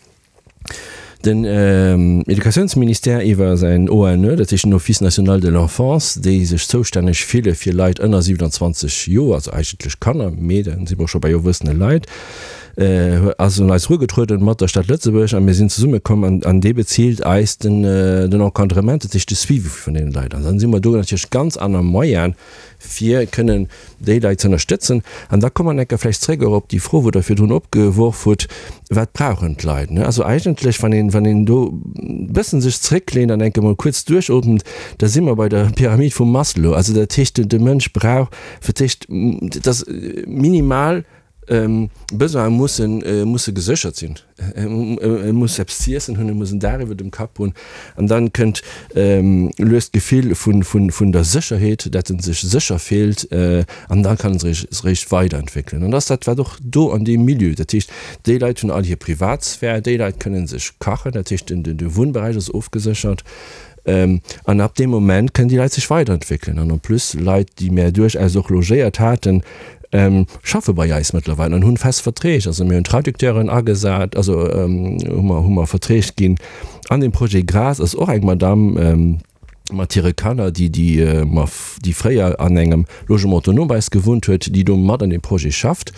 Den Educatiounsministère iwwer säin ONE, dat heescht den Office national de l'enfance, déi sech zoustänneg fille fir Leit ënner 27 Joer, also eigentlech Kanner, mee da si mer och scho bei erwuessene Leit, ass un eis erugetrueden mat der Stad Lëtzebuerg a mir sinn zesummekomm an an dee bezilt eis den den Encadrement, dat heescht de Suivi vun deene Leit. An dann si mer do natierlech ganz aner Moyene fir kënnen déi Leit ze ënnerstëtzen. An da komme mer enker vläicht zréck och op déi Fro, wou Der virdrun opgeworf hutt, Wat brauchen d'Leit? Also eigentlech, wann een, wann een do e bëssen sech zrécklehnt an enke mol kuerz duerchootmt, da si mer bei der Pyramid vum Maslow. Also dat heescht, de Mënsch brauch fir d'éischt, dass minimal Besoine mussen, musse geséchert sinn. E muss eppes z'iessen hunn, e muss en Daach iwwer dem Kapp hunn. An dann kënnt lues d'Gefill vun der Sécherheet, dat en sech sécher fillt. An da kann en sech eréischt weiderentwéckelen. An dat ass dat, wat och do an deem Milieu, dat heescht, déi Leit hunn all hir Privatsphär, déi Leit kënne sech kachen, dat heescht, de Wunnberäich ass ofgeséchert. An ab deem Moment kënnen déi Leit sech weiderentwéckelen. An en plus, Leit, déi mär duerchaus och logéiert haten, schaffe bei eis mëttlerweil an hunn fest Verträg. Also mir hunn Traducteuren agesat, also hu mer, hu mer Verträg ginn. An dem Projet Grace ass och eng Madamm mat hire Kanner, déi, déi mer, déi fréier an engem Logement autonome bei eis gewunnt huet, déi do mat an deem Projet schafft.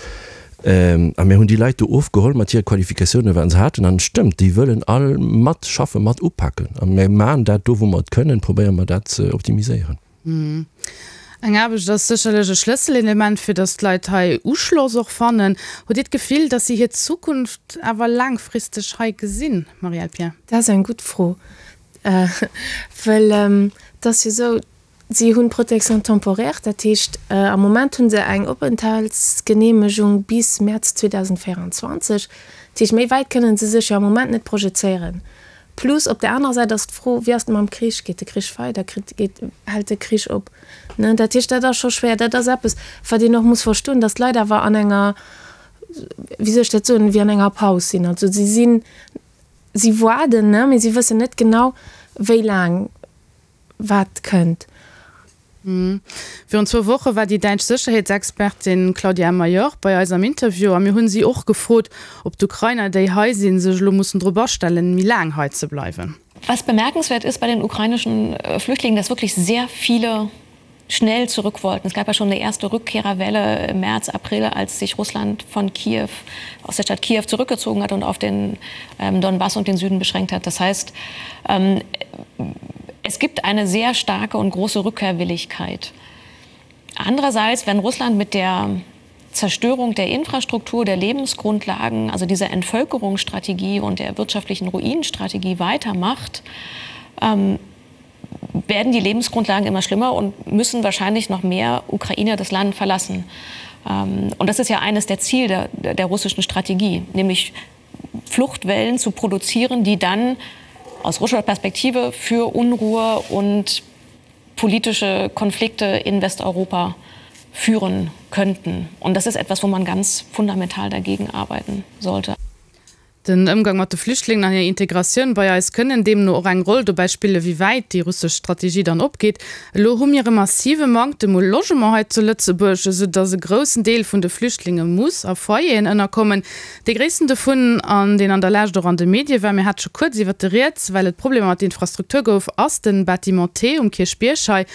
A mir hunn déi Leit do ofgeholl mat hire Qualifikatiounen, wat se haten. An et stëmmt, déi wëllen all matschaffen, mat upaken. A mir maachen dat do, wou mer et kënnen, probéiere mer dat ze optimiséieren. Eng Aarbecht ass sécherlech e Schlësselelement, fir datt d'Leit hei Uschloss och fannen. Hutt Dir d'Gefill, datt si hir Zukunft awer laangfristeg hei gesinn, Marielle Pierre? Dat ass eng gutt Fro, well et ass jo esou, Si hunn d'Protection temporaire, dat heescht am Moment hu se eng Openthaltsgeneemegung bis Mäerz 2024. Dat heescht, méi wäit kënnen se sech jo am Moment net projezéieren. Plus op der anerer Säit ass d'Fro, wéi ass et mam Krich? Geet de Krich weider? Kritt, geet, hält de Krich op? Ne, dat heescht, dat ass scho schwéier. Dat ass eppes, wat een och muss verstoen, datt d'Leit awer an enger, wéi soll ech dat soen, wéi an enger Paus sinn. Also si sinn, si waarden, ne, mee si wëssen net genau, wéi laang. wat kënnt. Virun zwou Woche war déi däitsch Sécherheetsexpertin Claudia Major bei eis am Interview a mir hunn si och gefrot, ob d'Ukrainer, déi hei sinn, sech elo mussen drop astellen, méi laang hei ze bleiwen. Was bemerkenswert ist bei den ukrainischen Flüchtlingen, dass wirklich sehr viele schnell zurück wollten. Es gab ja schon eine erste Rückkehrerwelle im März, April, als sich Russland von Kiew aus der Stadt Kiew zurückgezogen hat und auf den ähm, Donbass und den Süden beschränkt hat. Das heißt, ähm, es gibt eine sehr starke und große Rückkehrwilligkeit. Andererseits, wenn Russland mit der Zerstörung der Infrastruktur, der Lebensgrundlagen, also dieser Entvölkerungsstrategie und der wirtschaftlichen Ruinenstrategie weitermacht, ähm, werden die Lebensgrundlagen immer schlimmer und müssen wahrscheinlich noch mehr Ukrainer das Land verlassen. Ähm, und das ist ja eines der Ziele der, der russischen Strategie, nämlich Fluchtwellen zu produzieren, die dann aus russischer Perspektive für Unruhe und politische Konflikte in Westeuropa führen könnten. Und das ist etwas, wo man ganz fundamental dagegen arbeiten sollte. Den Ëmgang mat de Flüchtlingen an hir Integratioun bei eis kënnen deemno och eng Roll dobäi spillen, wéi wäit déi russesch Strategie dann opgeet. Elo hu mir e massive Manktem u Logement hei zu Lëtzebuerg, esou datt e groussen Deel vun de Flüchtlinge muss a Foyeren ënnerkommen. Dee gréissten dovun, an deen an der Lescht och an de Medie war, mir hate scho kuerz iwwert de rieds, well et Problemer mat der Infrastruktur gouf, ass den Bâtiment T um Kierchbierg hei,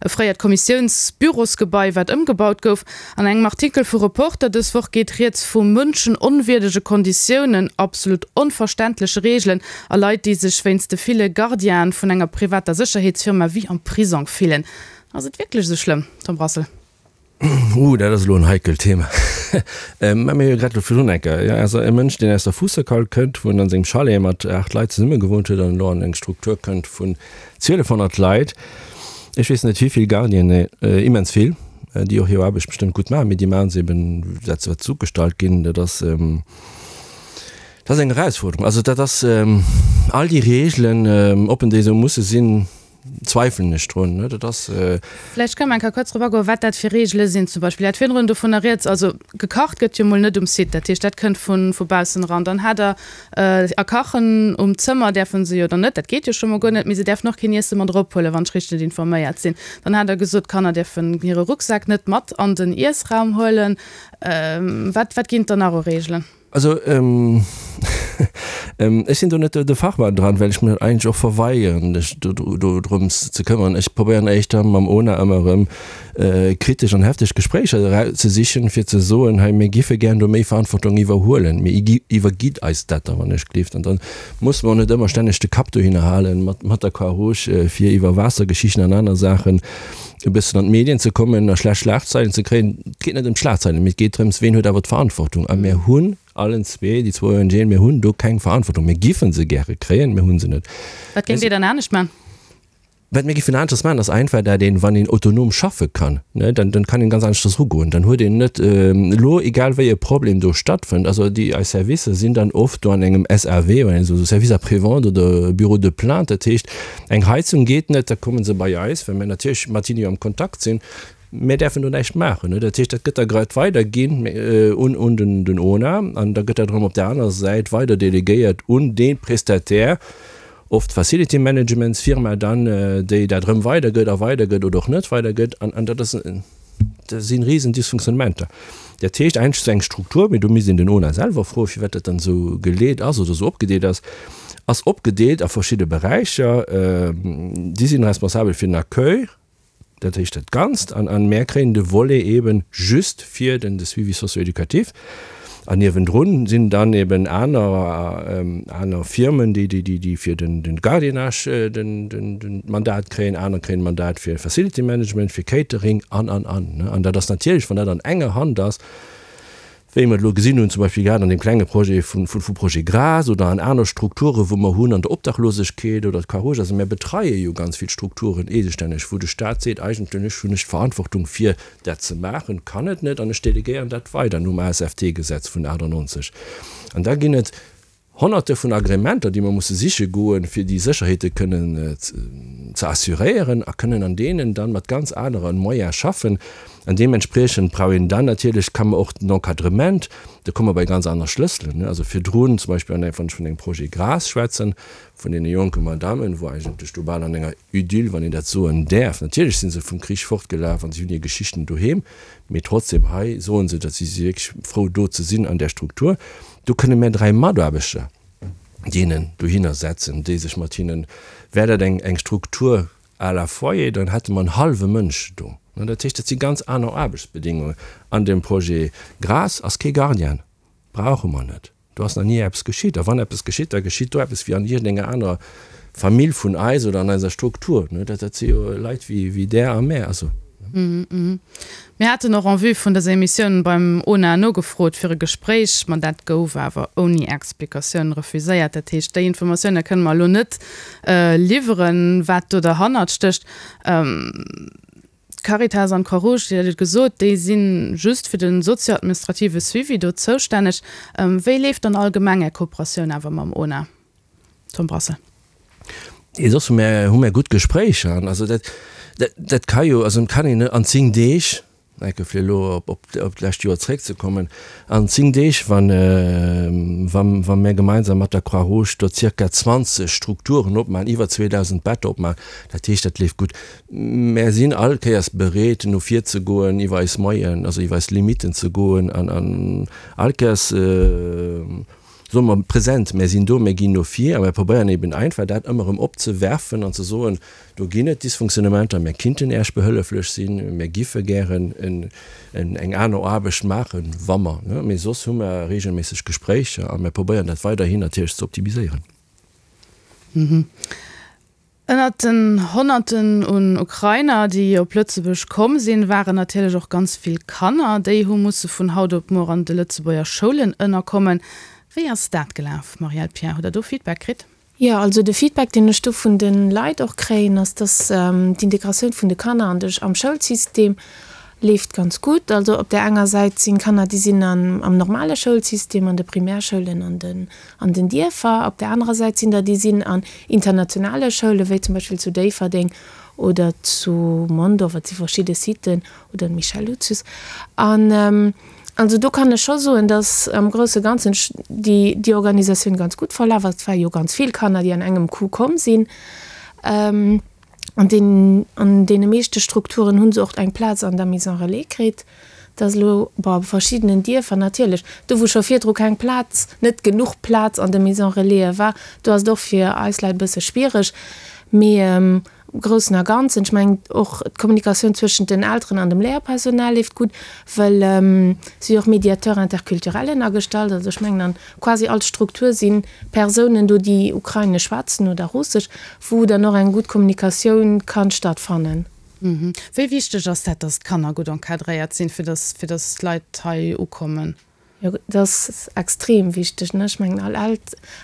e fréiert Kommissiounsbürosgebai, wat ëmgebaut gouf. An engem Artikel vu Reporter dës Woch geet rieds vu mënschenonwierdege Konditiounen, absolut onverständleche Reegelen a Leit, déi sech wéinst de ville Gardienen vun enger privater Sécherheetsfirma wéi am Prisong fillen. Ass et wierklech esou schlëmm, Tom Brassel? Uh, dat ass elo en heikelt Thema. Mä mir hu jo grad elo virdrun eng Kéier, jo, also e Mënsch, deen aus der Fuusserkal kënnt, wou en an sengem Chalet mat 8 Leit zesumme gewunnt huet an elo an eng Struktur kënnt vun 1200 Leit, ech weess net wéi vill Gardienen, immens vill, déi och hir Aarbecht bestëmmt gutt maachen, mee déi maachen se eben dat wat se ugestallt ginn. Dat ass, dat ass eng Erausfuerderung. Also dat ass all déi Reegelen, ob en déi esou musse sinn, zweifelen ech drun. Dat ass. Vläicht kënne mer eng Kéier kuerz drop agoen, wat dat fir Reegele sinn. Zum Beispill, Dir hat virdrun dovunner rieds, also gekacht gëtt jo mol net um Site, dat heescht, dat kënnt vu baussen eran. Dann hat Der A kachen um Zëmmer däerfe se jo dann net, dat geet jo scho mol guer net, mee se däerfen och keen Iesse mat erophuelen, wann ech richteg informéiert sinn. Dann hat Der gesot, d'Kanner däerfen hire Rucksak net mat an den Iessraum huelen. Wat, wat ginn et dann nach u Reegelen? Also, ech sinn do net de Fachmann dran, well ech mech eigentlech och verweigeren, mech do drëms ze këmmeren. Ech probéieren éischter mam ona ëmmer erëm kritesch an hefteg Gespréicher ze sichen, fir ze soen, hei mir giffe gären do méi Verantwortung iwwerhuelen, mee iwwergitt eis dat da wann ech gleeft. An da musse mer och net ëmmer stänneg de Kapp dohinner halen mat der Croix-Rouge, fir iwwer Waassergeschichten an aner Saachen e bëssen an d'Medien ze kommen a schlecht Schlagzeilen ze kréien. Et geet net ëm d'Schlagzeilen, mee et geet drëms, ween huet awer d'Verantwortung. A mir hunn allen zwee, déi zwou ONGen, mir hunn do keng Verantwortung. Mir giffen se gäre kréien, mir hu se net. Wat géingt Dir dann anescht man? Wat mir giffen aneschters maachen, ass einfach, dat een, wann een autonom schaffe kann, ne, dann, dann kann een ganz aneschters erugoen. Dann huet een net elo, egal wéi e Problem do stattfënnt, also déi eis Servicer sinn dann oft do an engem SAV, oder esou Service après-vente oder Bureau de plainte, dat heescht, eng Heizung geet net, da komme se bei eis, well mir natierlech mat hinne jo am Kontakt sinn. Mir däerfen do näischt maachen. Dat heescht, dat gëtt da grad weiderginn un, un den, den ona an da gëtt dat erëm op där anerer Säit weider delegéiert un dee Prestataire, oft d'Facility Managements Firma dann, déi dat erëm weidergëtt a weidergëtt oder och net weidergëtt an an dat ass, dat si risen Dysfunktionnementer. Dat heescht eigentlech esou eng Struktur, mee do misst een den ona selwer froen, firwat dat dann esou geleet ass oder esou opgedeelt ass, ass opgedeelt a verschidde Beräicher. Si sinn responsabel fir den Accueil, dat heescht dat Ganzt, an an mär kréien de Volet eeben just fir den de Suivi socio-éducatif. An niewendrun sinn dann eben aner, aner Firmen, déi, déi, déi fir den, den Gardiennage den, den, den Mandat kréien, aner kréien Mandat fir Facility Management, fir Catering an, an, an. An dat ass natierlech, wann dat an enger Hand ass, wéi mer et elo gesinn hunn, zum Beispill grad an deem klenge Projet vun, vun, Projet Gras oder an aner Strukture wou mer hunn an der Obdachlosegkeet oder d'Croix-Rouge, also mär betreie jo ganz vill Strukturen eegestänneg, wou de Stat seet, eigentlech hunn ech d'Verantwortung fir dat ze maachen, kann et net an ech delegéieren dat weider nom ASFT-Gesetz vun 98. An da ginn et Honnerte vun Agrémenter, déi mer musse siche goen, fir déi Sécherheete kënnen ze assuréieren a kënnen an deenen dann mat ganz anere Moyens schaffen. An deementspriechend brauch een dann natierlech, kann mer och den Encadrement, do komme mer bei ganz aner Schlësselen, also virdrun zum Beispill an engem, wann ech vun engem Projet Gras schwätzen, vun deene jonke Madammen, wou eigentlech do bal an enger Idyll, wann een dat soen däerf, natierlech si se vum Krich fortgelaf an si hunn hir Geschichten doheem, mee trotzdem hei soe se, datt si si wierklech frou do ze sinn an där Struktur. Do kënne mär 3 Mataarbechter deenen dohinner setzen, déi sech mat hinnen, wär dat eng eng Struktur à la Foyer, dann hätte mer en hallwe Mënsch do. Dat heescht, dat si ganz aner Aarbechtsbedingungen. An dem Projet Gras ass kee Gardien, brauche mer net. Do ass nach ni eppes geschitt. A wann eppes geschitt, da geschitt do eppes wéi an iergendenger anerer Famill vun eis oder an eiser Struktur. Dat si jo Leit wéi där a mär. Also. Mir haten och en vue vun dëser Emissioun beim ona nogefrot fir e Gespréich, ma dat gouf awer ouni Explikatioun refuséiert. Dat heescht, déi Informatioune kënne mer elo net liwweren, wat do derhannert stécht. D'Caritas an d'Croix-Rouge, Dir hat et gesot, déi si just fir de sozio-administrative Suivi do zoustänneg. Wéi leeft dann allgemeng Är Kooperatioun awer mam ona? Tom Brassel. Nee, soss hu mär, hu mär gutt Gespréicher. An also dat, dat, dat ka jo, also et kann een net an 10 Deeg, enke fir elo op, op, op d'lescht Joer zréckzekommen, an 10 Deeg, wann, wa, wa mär gemeinsam mat der Croix-Rouge do zirka 20 Strukturen opmachen, iwwer 2.000 Better opmachen, dat heescht, dat leeft gutt. Mär sinn all Kéiers bereet, no vir ze goen, iwwer eis Moyen, also iwwer eis Limiten ze goen an, an all Kéiers, soe mer, present, mär sinn do, mär ginn no vir a mär probéieren eben einfach dat ëmmer erëm opzewerfen an ze soen, do ginn et Dysfunktionnementer, mär kinnten Äech behëlleflech sinn, mär giffe gären eng aner Aarbecht maachen, wa mer, ne, mee soss hu mer regelméisseg Gespréicher a mär probéieren dat weiderhin natierlech ze optimiséieren. Ënnert den Honnerten un Ukrainer, déi op Lëtzebuerg komm sinn, waren natierlech och ganz vill Kanner. Déi hu musse vun haut op muer an de Lëtzebuerger Schoulen ënnerkommen. Wéi ass dat gelaf, Marielle Pierre? Hutt der do Feedback kritt? Jo, also de Feedback, deen ech do vun de Leit och kréien, ass, dass d'Integratioun vun de Kanner an de am Schoulsystem leeft ganz gutt. Also op där enger Säit sinn Kanner, déi sinn am normale Schoulsystem, an de Primärschoulen an den an den Dierfer. Op där anerer Säit sinn der, déi sinn an internationale Schoulen, wéi zum Beispill zu Déifferdeng oder zu Mondorf, et si verschidde Siten, oder Michel Lucius. An also do kann ech scho soen, datt am grousse Ganzen déi déi Organisatioun ganz gutt verlaf ass. Et ware jo ganz vill Kanner, déi an engem Coup komm sinn. An deenen, an deene meeschte Strukturen hu se och eng Plaz an der Maison relais kritt. Dat ass elo, bon, a verschiddenen Dierfer natierlech, do wou scho virdru keng Plaz, net genuch Plaz an de Maison relaisen war, do ass et och fir eis Leit e bësse schwiereg. Mee am Groussen a Ganzen, ech mengen och d'Kommunikatioun zwëschent den Elteren an dem Léierpersonal leeft gutt, well si och Médiateur interculturellen agestallt. Also ech mengen an quasi all Struktur si Persounen do, déi Ukrainesch schwätzen oder Russesch, wou dann och eng gutt Kommunikatioun kann stattfannen. Wéi wichteg ass dat, dass d'Kanner gutt encadréiert sinn, fir dass, fir dass d'Leit hei ukommen? Jo, dat ass extrem wichteg, ne? Ech mengen, all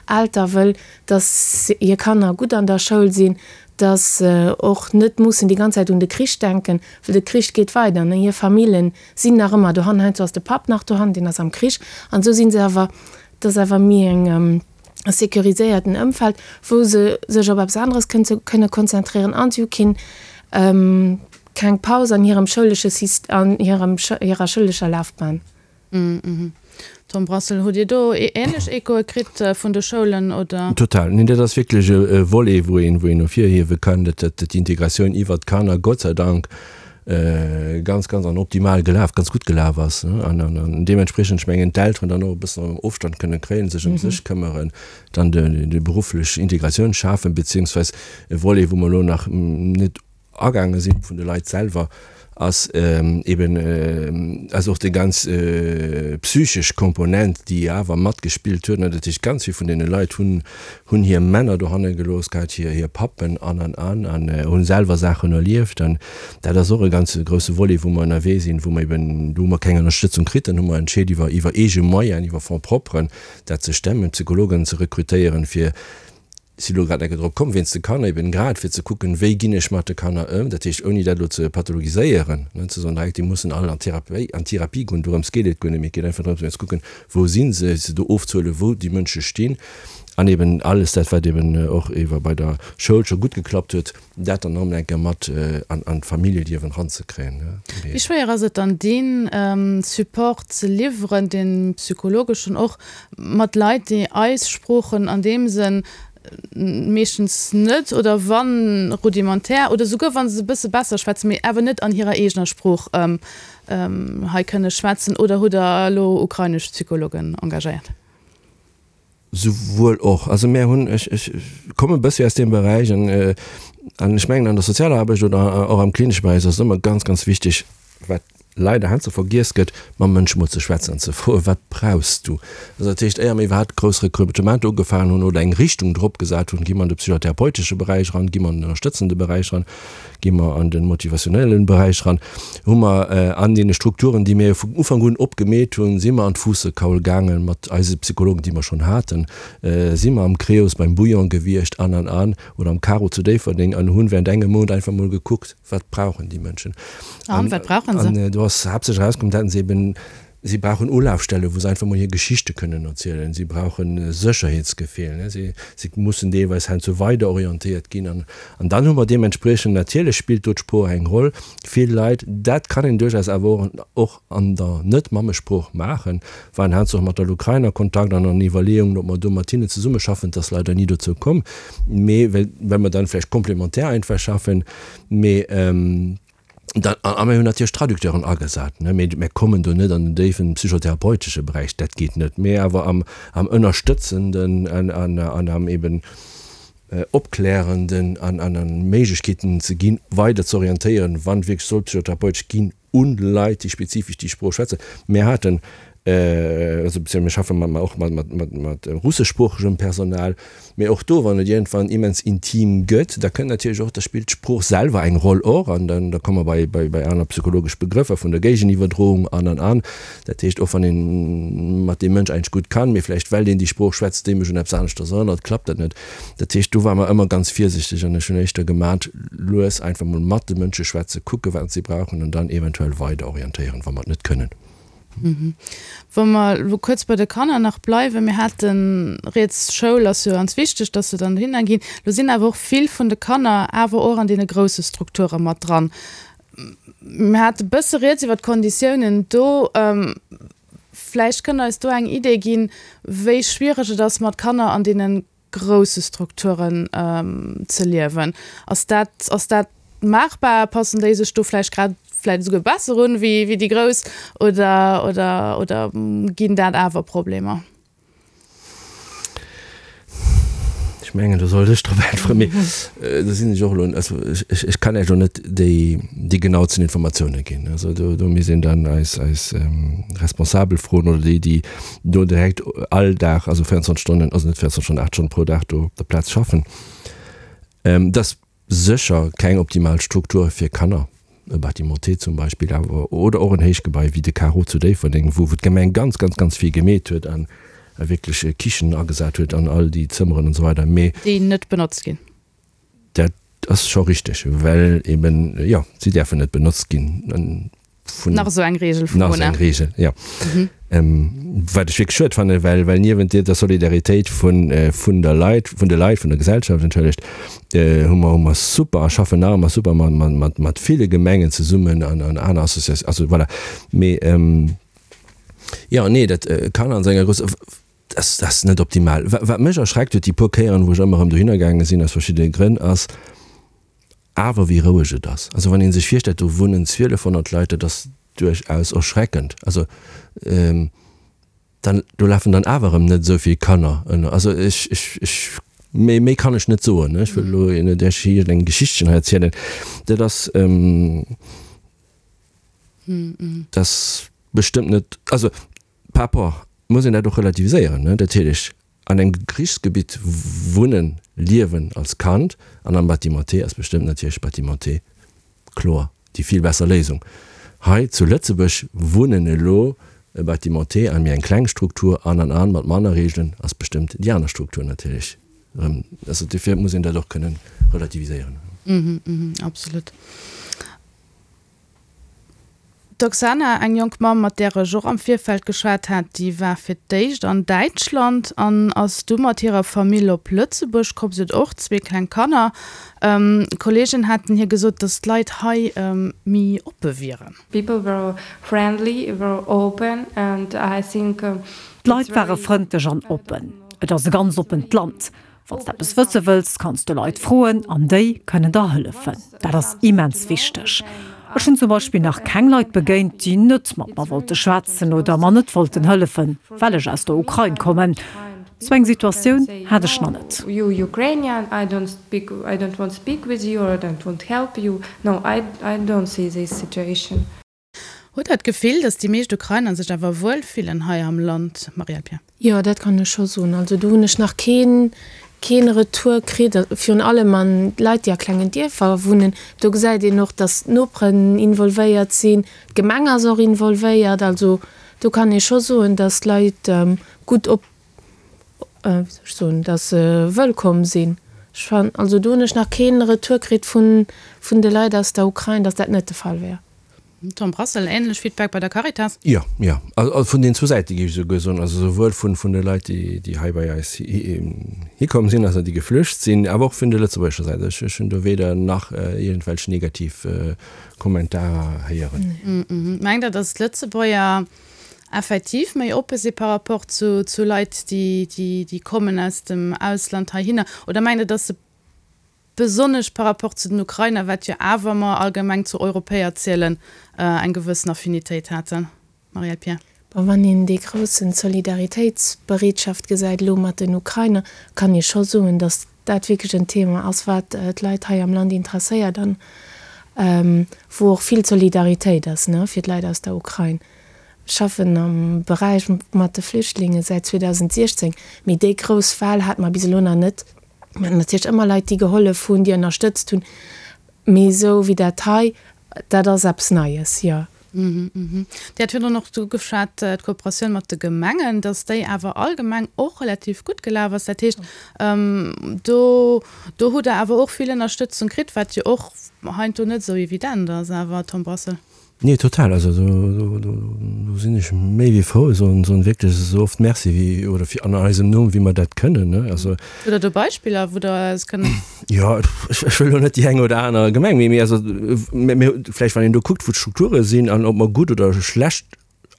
Elter wëll, dass hir Kanner gutt an der Schoul sinn, dass se och net mussen déi ganz Zäit un de Krich denken, well de Krich geet weider, ne? Hir Famillen sinn nach ëmmer dohan, heiansdo ass de Papp nach dohan, deen ass am Krich, an esou si se awer, dat ass awer méi eng, e sécuriséierten Ëmfeld, wou se sech op eppes aneres kënne konzentréieren an si hu keen, keng Paus an hirem schoulesche Syst-, an hirem, hirer schoulescher Lafbahn. Tom Brassel, Hutt Dir do änlech Echoe kritt vun de Schoulen, oder? Total. Neen, dat ass wierklech e Volet, wou een, wou een ervirhiewe kann, datt d'Integratioun iwwert d'Kanner Gott sei Dank ganz, ganz an optimal gelaf, ganz gutt gelaf ass an deementspriechend, ech mengen, d'Elteren dann och e bëssen Ofstand kënne kréien, sech ëm sech këmmeren, dann déi berufflech Integratioun schafen, beziehungsweis e Volet, wou mer elo nach net agaange sinn, vun de Leit selwer. Ass eben ass och déi ganz psychesch Komponent, déi awer matgespillt huet. Dat heescht, ganz vill vun deene Leit hunn hunn hir Männer dohanne gelooss gehat, hir hir Pappen an an an, an hunn selwer Saachen erlieft. An dat ass och e ganz grousse Volet, wou mer ënnerwee sinn, wou mer eben, do hu mer keng Ënnerstëtzung kritt, dann hu mer entscheet iwwer iwwer eege Moyen, iwwer Fonds propren dat ze stemmen, Psychologen ze rekrutéieren, fir si lo grad enke drop komm, wéinst de Kanner eben, grad fir ze kucken, wéi ginn ech mat de Kanner ëm, dat heescht ouni dat elo ze pathologiséieren, ne, ze soen direkt, déi mussen all an d'Therapie, an d'Therapie goen, dorëms geet et guer net, mee et geet einfach drëms, fir ze kucken, wou si se, se do ofzehuelen, wou déi Mënsche stinn an eben alles dat, wat eben och iwwer bei der Schoul scho gutt geklappt huet, dat dann erëm eng Kéier mat an an d'Familljeliewen eranzekréien. Wéi schwéier ass et dann, dee Support ze liwweren, dee psychologeschen och, mat Leit, déi eis Sproochen an deem Sënn meeschtens net oder wann rudimentär oder souguer wa se e bësse besser schwätzen, mee awer net an hirer eegener Sprooch hei kënne schwätzen? Oder hutt Der elo ukrainesch Psychologen engagéiert? Souwuel och. Also mär hunn, ech, ech komme e bëssi aus deem Beräich an, an ech mengen an der sozialer Aarbecht oder och am klinesche Beräich ass et ëmmer ganz, ganz wichteg, wat leider heiansdo vergiess gëtt, mam Mënsch mol ze schwätzen an ze froen, Wat brauchs du? Also dat heescht, éier mir iwwerhaapt grouss Rekrutementer ugefaangen hunn oder eng Richtung drop gesat hunn, gi mer an de psychotherapeutesche Beräich eran, gi mer an den ënnerstëtzende Beräich eran, gi mer an de motivationellen Beräich eran, hu mer an deene Strukturen, déi mir vun Ufank un opgemeet hunn, si mer an d'Fuussekaul gaangen mat eise Psychologen, déi mer schonn haten, si mer am Creos beim Bouillon gewiescht an an an oder am Caro zu Déifferdeng an hunn während engem Mount einfach mol gekuckt, Wat brauchen déi Mënschen? An wat brauchen se? An do ass haaptsächlech erauskomm, dat se eben, si brauchen Ulafstellen, wou se einfach mol hir Geschichte kënnen erzielen. Si brauchen Sécherheetsgefill, si, si mussen deelweis heiansdo weider orientéiert ginn. An, an dann hu mer deementspriechend, natierlech spillt do d'Sprooch eng Roll, vill Leit, dat kann een duerchaus awer och, och an der Net-Mammesprooch maachen, waren heiansdo och mat der Ukrain a Kontakt an an Iwwerleeungen, ob mer do mat hinnen zesummeschaffen. Et ass leider ni dozou komm, mee well, well mer dann vläicht komplementär einfach schaffen. Mee dann, a mir hunn natierlech Traducteuren agesat, ne, mee mir kommen do net an den déiwen psychotherapeutesche Beräich, dat geet net, mee awer am, am ënnerstëtzenden an, an, an am eben opklärenden an, an, an Méiglechkeeten ze ginn, weider ze orientéieren, wann wierklech soll psychotherapeutesch ginn, un Leit, déi spezifesch déi Sprooch schwätzen. Mir haten, also beziehungsweise mir schaffe mat, och mat, mat, mat, mat russeschsproochegem Personal, mee och do, wann et iergendwann immens intim gëtt, da kënnt natierlech och, da spillt d'Sprooch selwer eng Roll och an dann, da komme mer bei, bei, bei aner psychologesch Begrëffer vun der Géigeniwwerdroung an, an, an. Dat heescht, och wann ee mat deem Mënsch eigentlech gutt kann, mee vläicht well deen déi Sprooch schwätzt, déi mech un eppes aneschters erënnert, klappt dat net. Dat heescht, do ware mer ëmmer ganz virsichteg an ech hunn éischter gemat, lues einfach mol mat de Mënsche schwätzen, kucke wat si brauchen an dann eventuell weider orientéieren, wa mer et net kënnen. Wa mer elo kuerz bei de Kanner nach bleiwen, mir hate rieds, Schoul ass jo ganz wichteg, dass se dann dohinner ginn. Lo sinn awer och vill vun de Kanner awer och an deene grousse Strukture mat dran. Mir hate bësse rieds iwwer d'Konditiounen do. Vläicht kënnt Der eis do eng Idee ginn, wéi schwiereg et ass, mat Kanner an deene grousse Strukturen ze liewen. Ass dat, ass dat maachbar? Passen déi sech do vläicht grad vläicht esouguer besser un wéi, wéi déi Grouss oder, oder, oder ginn dat awer Problemer? Ech mengen, do sollt ech drop äntweren, mee do sinn ech och elo, also ech, ech kann Iech elo net déi, déi genauzen Informatiounen ginn. Also do, do misst een dann eis, eis Responsabel froen oder déi, déi do direkt all Dag, also 24 Stonnen, also net 24 Stonnen, 8 Stonnen pro Dag do op der Plaz schaffen. Dat ass sécher keng optimal Struktur fir Kanner, e Bâtiment T zum Beispill, awer oder och en Héichgebai wéi de Carreau zu Déifferdeng, wou d'Gemeng ganz, ganz, ganz vill gemeet huet an wierklech Kichen agesat huet an all déi Zëmmeren an esou weider, mee. Déi net benotzt ginn. Dat ass scho richteg, well eben, jo, si däerfen net benotzt ginn. Vun, nach esou eng Regel vum Nach esou eng Regel, jo. Mhm. Ähm, wat ech wierklech schued fannen, well, well niewent der Solidaritéit vun, vun der Leit, vun de Leit, vun der Gesellschaft, entschëllegt, hu mer, hu mer super a schaffen nach ëmmer super mat, mat, mat, mat ville Gemengen zesummen an, an aner Associatiounen, also voilà. Mee, jo, nee, dat kann an senger Gröss, dat ass net optimal. Wat mech erschreckt huet, déi puer Kéieren, wou ech ëmmer erëm dohinner gaange sinn, aus verschiddene Grënn, ass awer wéi roueg et ass. Also wann ee sech virstellt, do wunnen 1.200 Leit, dat ass duerchaus erschreckend. Also dann, do lafen dann awer erëm net esou vill Kanner ënner. Also ech, ech, ech, méi, méi kann ech net soen, ech wëll elo net Iech iergendeng Geschichtchen hei erzielen. Dat ass. Dat ass bestëmmt net, also par rapport muss een dat och relativiséieren, ne, natierlech an engem Krichsgebitt wunnen, liewen als Kand an am Bâtiment T ass bestëmmt natierlech Bâtiment T kloer déi vill besser Léisung. Hei zu Lëtzebuerg wunnen elo e Bâtiment T an méi eng kleng Struktur an an an mat manner Reegelen ass bestëmmt déi aner Struktur natierlech erëm. Also dofir muss een dat och kënnen relativiséieren. Absolut. D'Oksana, eng jonk Mamm, mat där ech och am Virfeld geschwat hat, déi war fir d'éischt an Däitschland an ass du mat hirer Famill op Lëtzebuerg komm. Si huet och zwee kleng Kanner. Kolleegen haten hir gesot, datt d'Leit hei méi oppe wieren. People were friendly, were open and I think. D'Leit ware frëndlech an oppen. Et ass e ganz oppent Land. Wann s de eppes wësse wëlls, kanns de Leit froen an déi kënnen der hëllefen. Dat ass immens wichteg. Ech hunn zum Beispill nach keng Leit begéint, déi net mat mer wollte schwätzen oder mer net wollten hëllefen, well ech aus der Ukrain kommen. Sou eng Situatioun hat ech nach net. Hutt Der d'Gefill, datt déi meescht Ukrainer sech awer wuel fillen hei am Land, Marielle Pierre? Jo, dat kann ech scho soen. Also do hunn ech nach keen, keen Retour kritt. Virun allem an d'Leit, déi a klengen Dierfer wunnen, do gesäit een och, datt d'Noperen involvéiert sinn, d'Gemeng ass och involvéiert. Also do kann ee scho soen, datt d'Leit gutt op, wéi soll ech soen, datt se wëllkomm sinn. Ech fannen, also do hunn ech nach keen Retour kritt vun, vun de Leit aus der Ukrain, datt dat net de Fall wär. Tom Brassel, Ähnlech Feedback bei der Caritas? Jo, jo. Also vun den zwou Säite géif ech esouguer soen. Also souwuel vun vun de Leit, déi déi hei bei eis hikomm sinn, also déi geflücht sinn, awer och vun der lëtzebuergescher Säit. Ech ech hunn do weder nach iergendwelch negativ Kommentarer héieren. Mengt Der, datt d'Lëtzebuerger effektiv méi oppe si par rapport zu zu Leit, déi déi déi kommen aus dem Ausland heihinner? Oder mengt Der, datt se besonnesch par rapport zu den Ukrainer, wat jo awer mer allgemeng zu Europäer zielen, eng gewëssen Affinitéit haten. Marielle Pierre. Bon, wann een déi groussen Solidaritéitsbereetschaft gesäit elo mat den Ukrainer, kann ee scho soen, datt dat wierklech en Thema ass, wat d'Leit hei am Land interesséiert an wou och vill Solidaritéit ass, ne, fir d'Leit aus der Ukrain. Ech schaffen am Beräich mat de Flüchtlinge säit 2016, mee déi grouss Well hate mer bis elo nach net. Mir haten natierlech ëmmer Leit, déi gehollef hunn, déi ënnerstëtzt hunn, mee esou wéi dat hei, dat ass eppes Neies, jo. Dir hat virdrun och ugeschwat, d'Kooperatioun mat de Gemengen, datt déi awer allgemeng och relativ gutt gelaf ass. Dat heescht, do do hutt Der awer och vill Ënnerstëtzung kritt, wat jo och heiansdo net esou evident ass awer, Tom Brassel. Nee, total. Also do, do, do sinn ech méi wéi frou. Soen, soen wierklech esou oft Merci wéi, oder fir an eisem Numm, wéi mer dat kënnen, ne. Also. Hutt Der do Beispiller, wou Der eis kënnt. Jo, ech, ech wëll elo net déi eng oder aner Gemeng, mee, mee also, mee, mee vläicht wann een do kuckt, wou d'Strukture sinn an ob mer gutt oder schlecht,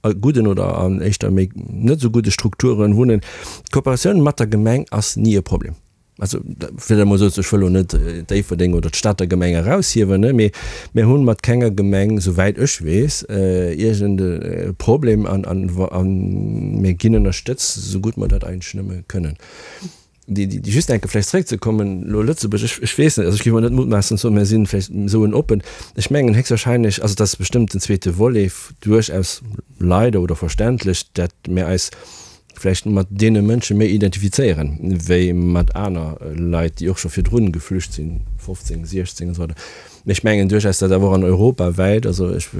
a gudden oder an éischter méi net esou gudde Strukturen wunnen. D'Kooperatioun mat der Gemeng ass ni e Problem. Also, fir dat emol esou ze, ech wëll elo net Déifferdeng oder d'Stater Gemeng eraushiewen, ne, mee mir hu mat kenger Gemeng, souwäit ech weess, iergend e Problem an, an, a mir ginn ënnerstëtzt, esou gutt mer dat eigentlech nëmme kënnen. Déi, déi, just eng Kéier vläicht zréckzekommen, elo Lëtzebuerg, ech, ech weess net, also ech géif emol net mutmaassen ze soen, mir si vläicht esou en oppen, ech mengen héchstwahrscheinlech, also dat ass bestëmmt den zweete Volet, duerchaus leider oder verständlech, dat mir eis vläicht mat deene Mënsche méi identifizéieren, wéi mat aner Leit, déi och scho virdrun geflücht sinn, 15, 16 an esou weider. Mee ech mengen duerchaus, datt awer och an Europa wäit, also ech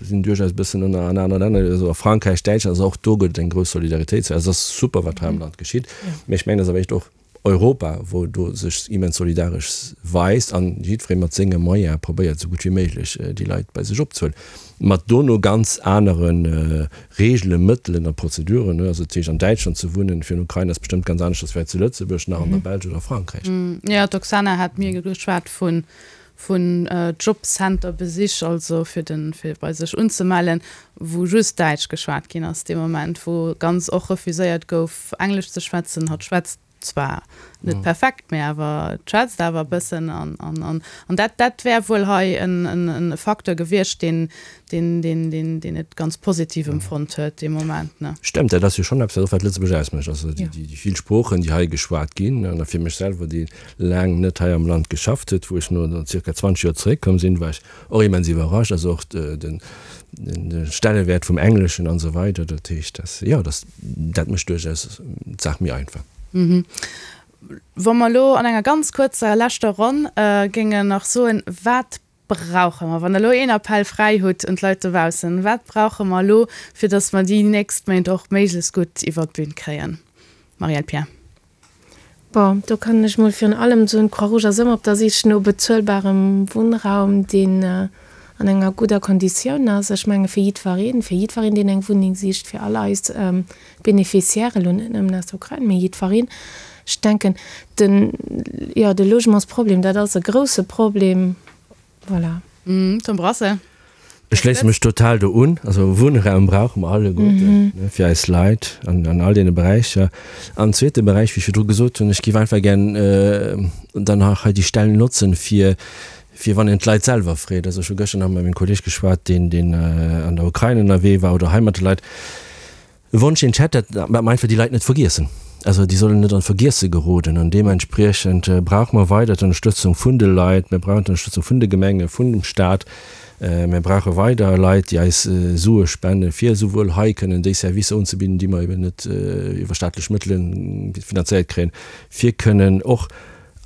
sinn duerchaus e bëssen ënner an anere Länner, also a Frankräich, Däitschland, also och do gëtt et eng grouss Solidaritéit. Also et ass super, wat hei am Land geschitt, mee ech mengen, et ass awer echt och Europa, wou do sech immens solidaresch weist an jiddweree mat senge Moyene probéiert, esou gutt wéi méiglech déi Leit bei sech opzehuelen, mat dono ganz anere Reegelen, Mëttelen a Prozeduren. Also dat heescht, an Däitschland ze wunnen fir en Ukrainer ass bestëmmt ganz aneschters wéi hei zu Lëtzebuerg, nach an der Belsch oder a Frankräich. Jo, d'Oksana hat mir geschwat vun vun Jobcenter-Besich, also fir den, fir bei sech unzemellen, wou just Däitsch geschwat ginn ass dee Moment, wou ganz och refuséiert gouf Englesch ze schwätzen. Hatt schwätzt. Zwar net perfekt, mee awer et schwätzt awer e bëssen. An, an, an, an dat, dat wär wuel hei en, en, en Facteur gewiescht, deen, deen, deen, deen, deen et ganz positiv empfonnt huet dee Moment, ne? Stëmmt, dat ass jo schonn eppes, wat och wat Lëtzebuerg ausmécht, also déi, déi, déi vill Sproochen, déi hei geschwat ginn. An a fir mech selwer, dee laang net hei am Land geschafft huet, wou ech no zirka 20 Joer zeréckkomm sinn, war ech och immens iwwerrascht. Also och den, den Stellewäert vum Engleschen an esou weider. Dat heescht, dass, jo, dass, dat mécht duerchaus d'Saach méi einfach. Wa mer elo an enger ganz kuerzer leschter Ronn géingen nach soen, wat brauche mer, wann Der elo een Appell fräi hutt un d'Leit dobaussen, wat brauche mer elo, fir datt mer déi nächst Méint och méiglechst gutt iwwert d'Bün kréien? Marielle Pierre. Bon, do kann ech mol virun allem soen, d'Croix-Rouge ass ëmmer op der Sich no bezuelbarem Wunnraum, deen an enger gudder Konditioun ass. Ech menge fir jiddwereen, fir jiddwereen, deen eng Wunneng sicht, fir all eis Beneficiaires, elo net nëmmen aus der Ukrain, mee jiddwereen. Ech denken, den, jo, de Logementsproblem, dat ass e grouse Problem. Voilà. Tom Brassel. Ech schléisse mech total do un. Also Wunnraum brauche mer alleguerten fir eis Leit an all deene Beräicher. An zweete Beräich, wéi ech virdru gesot hunn, ech géif einfach gär dann nach hei déi Stell notzen, fir fir wann een d'Leit selwer freet. Also ech hu gëschter nach mat mengem Kolleeg geschwat, deen deen an der Ukrain ënnerwee war oder hei mat de Leit. E Wonsch deen ech hätt, dat mer einfach déi Leit net vergiessen. Also déi sollen net an d'Vergiesse geroden an deementspriechend brauche mer weider d'Ënnerstëtzung vun de Leit, mir brauchen d'Ënnerstëtzung vun de Gemenge, vun dem Staat, mir brauche weider Leit déi eis Sue spenden, fir esouwuel hei kënnen déi Servicer unzebidden, déi mer eben net iwwer staatlech Mëttele finanzéiert kréien, fir kënnen och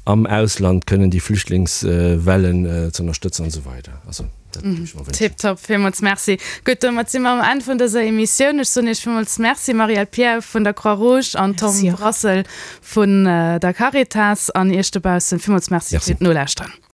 am Ausland kënnen déi Flüchtlingswellen ze ënnerstëtzen an esou weider. Also dat géif ech mer wënschen. Tiptop, villmools Merci. Gutt, domat si mer um Enn vun dëser Emissioun. Ech soen Iech villmools Merci, Marielle Pierre vun der Croix-Rouge an Tom Brassel vun der Caritas an Iech dobaussen villmools Merci fir d'Nolauschteren.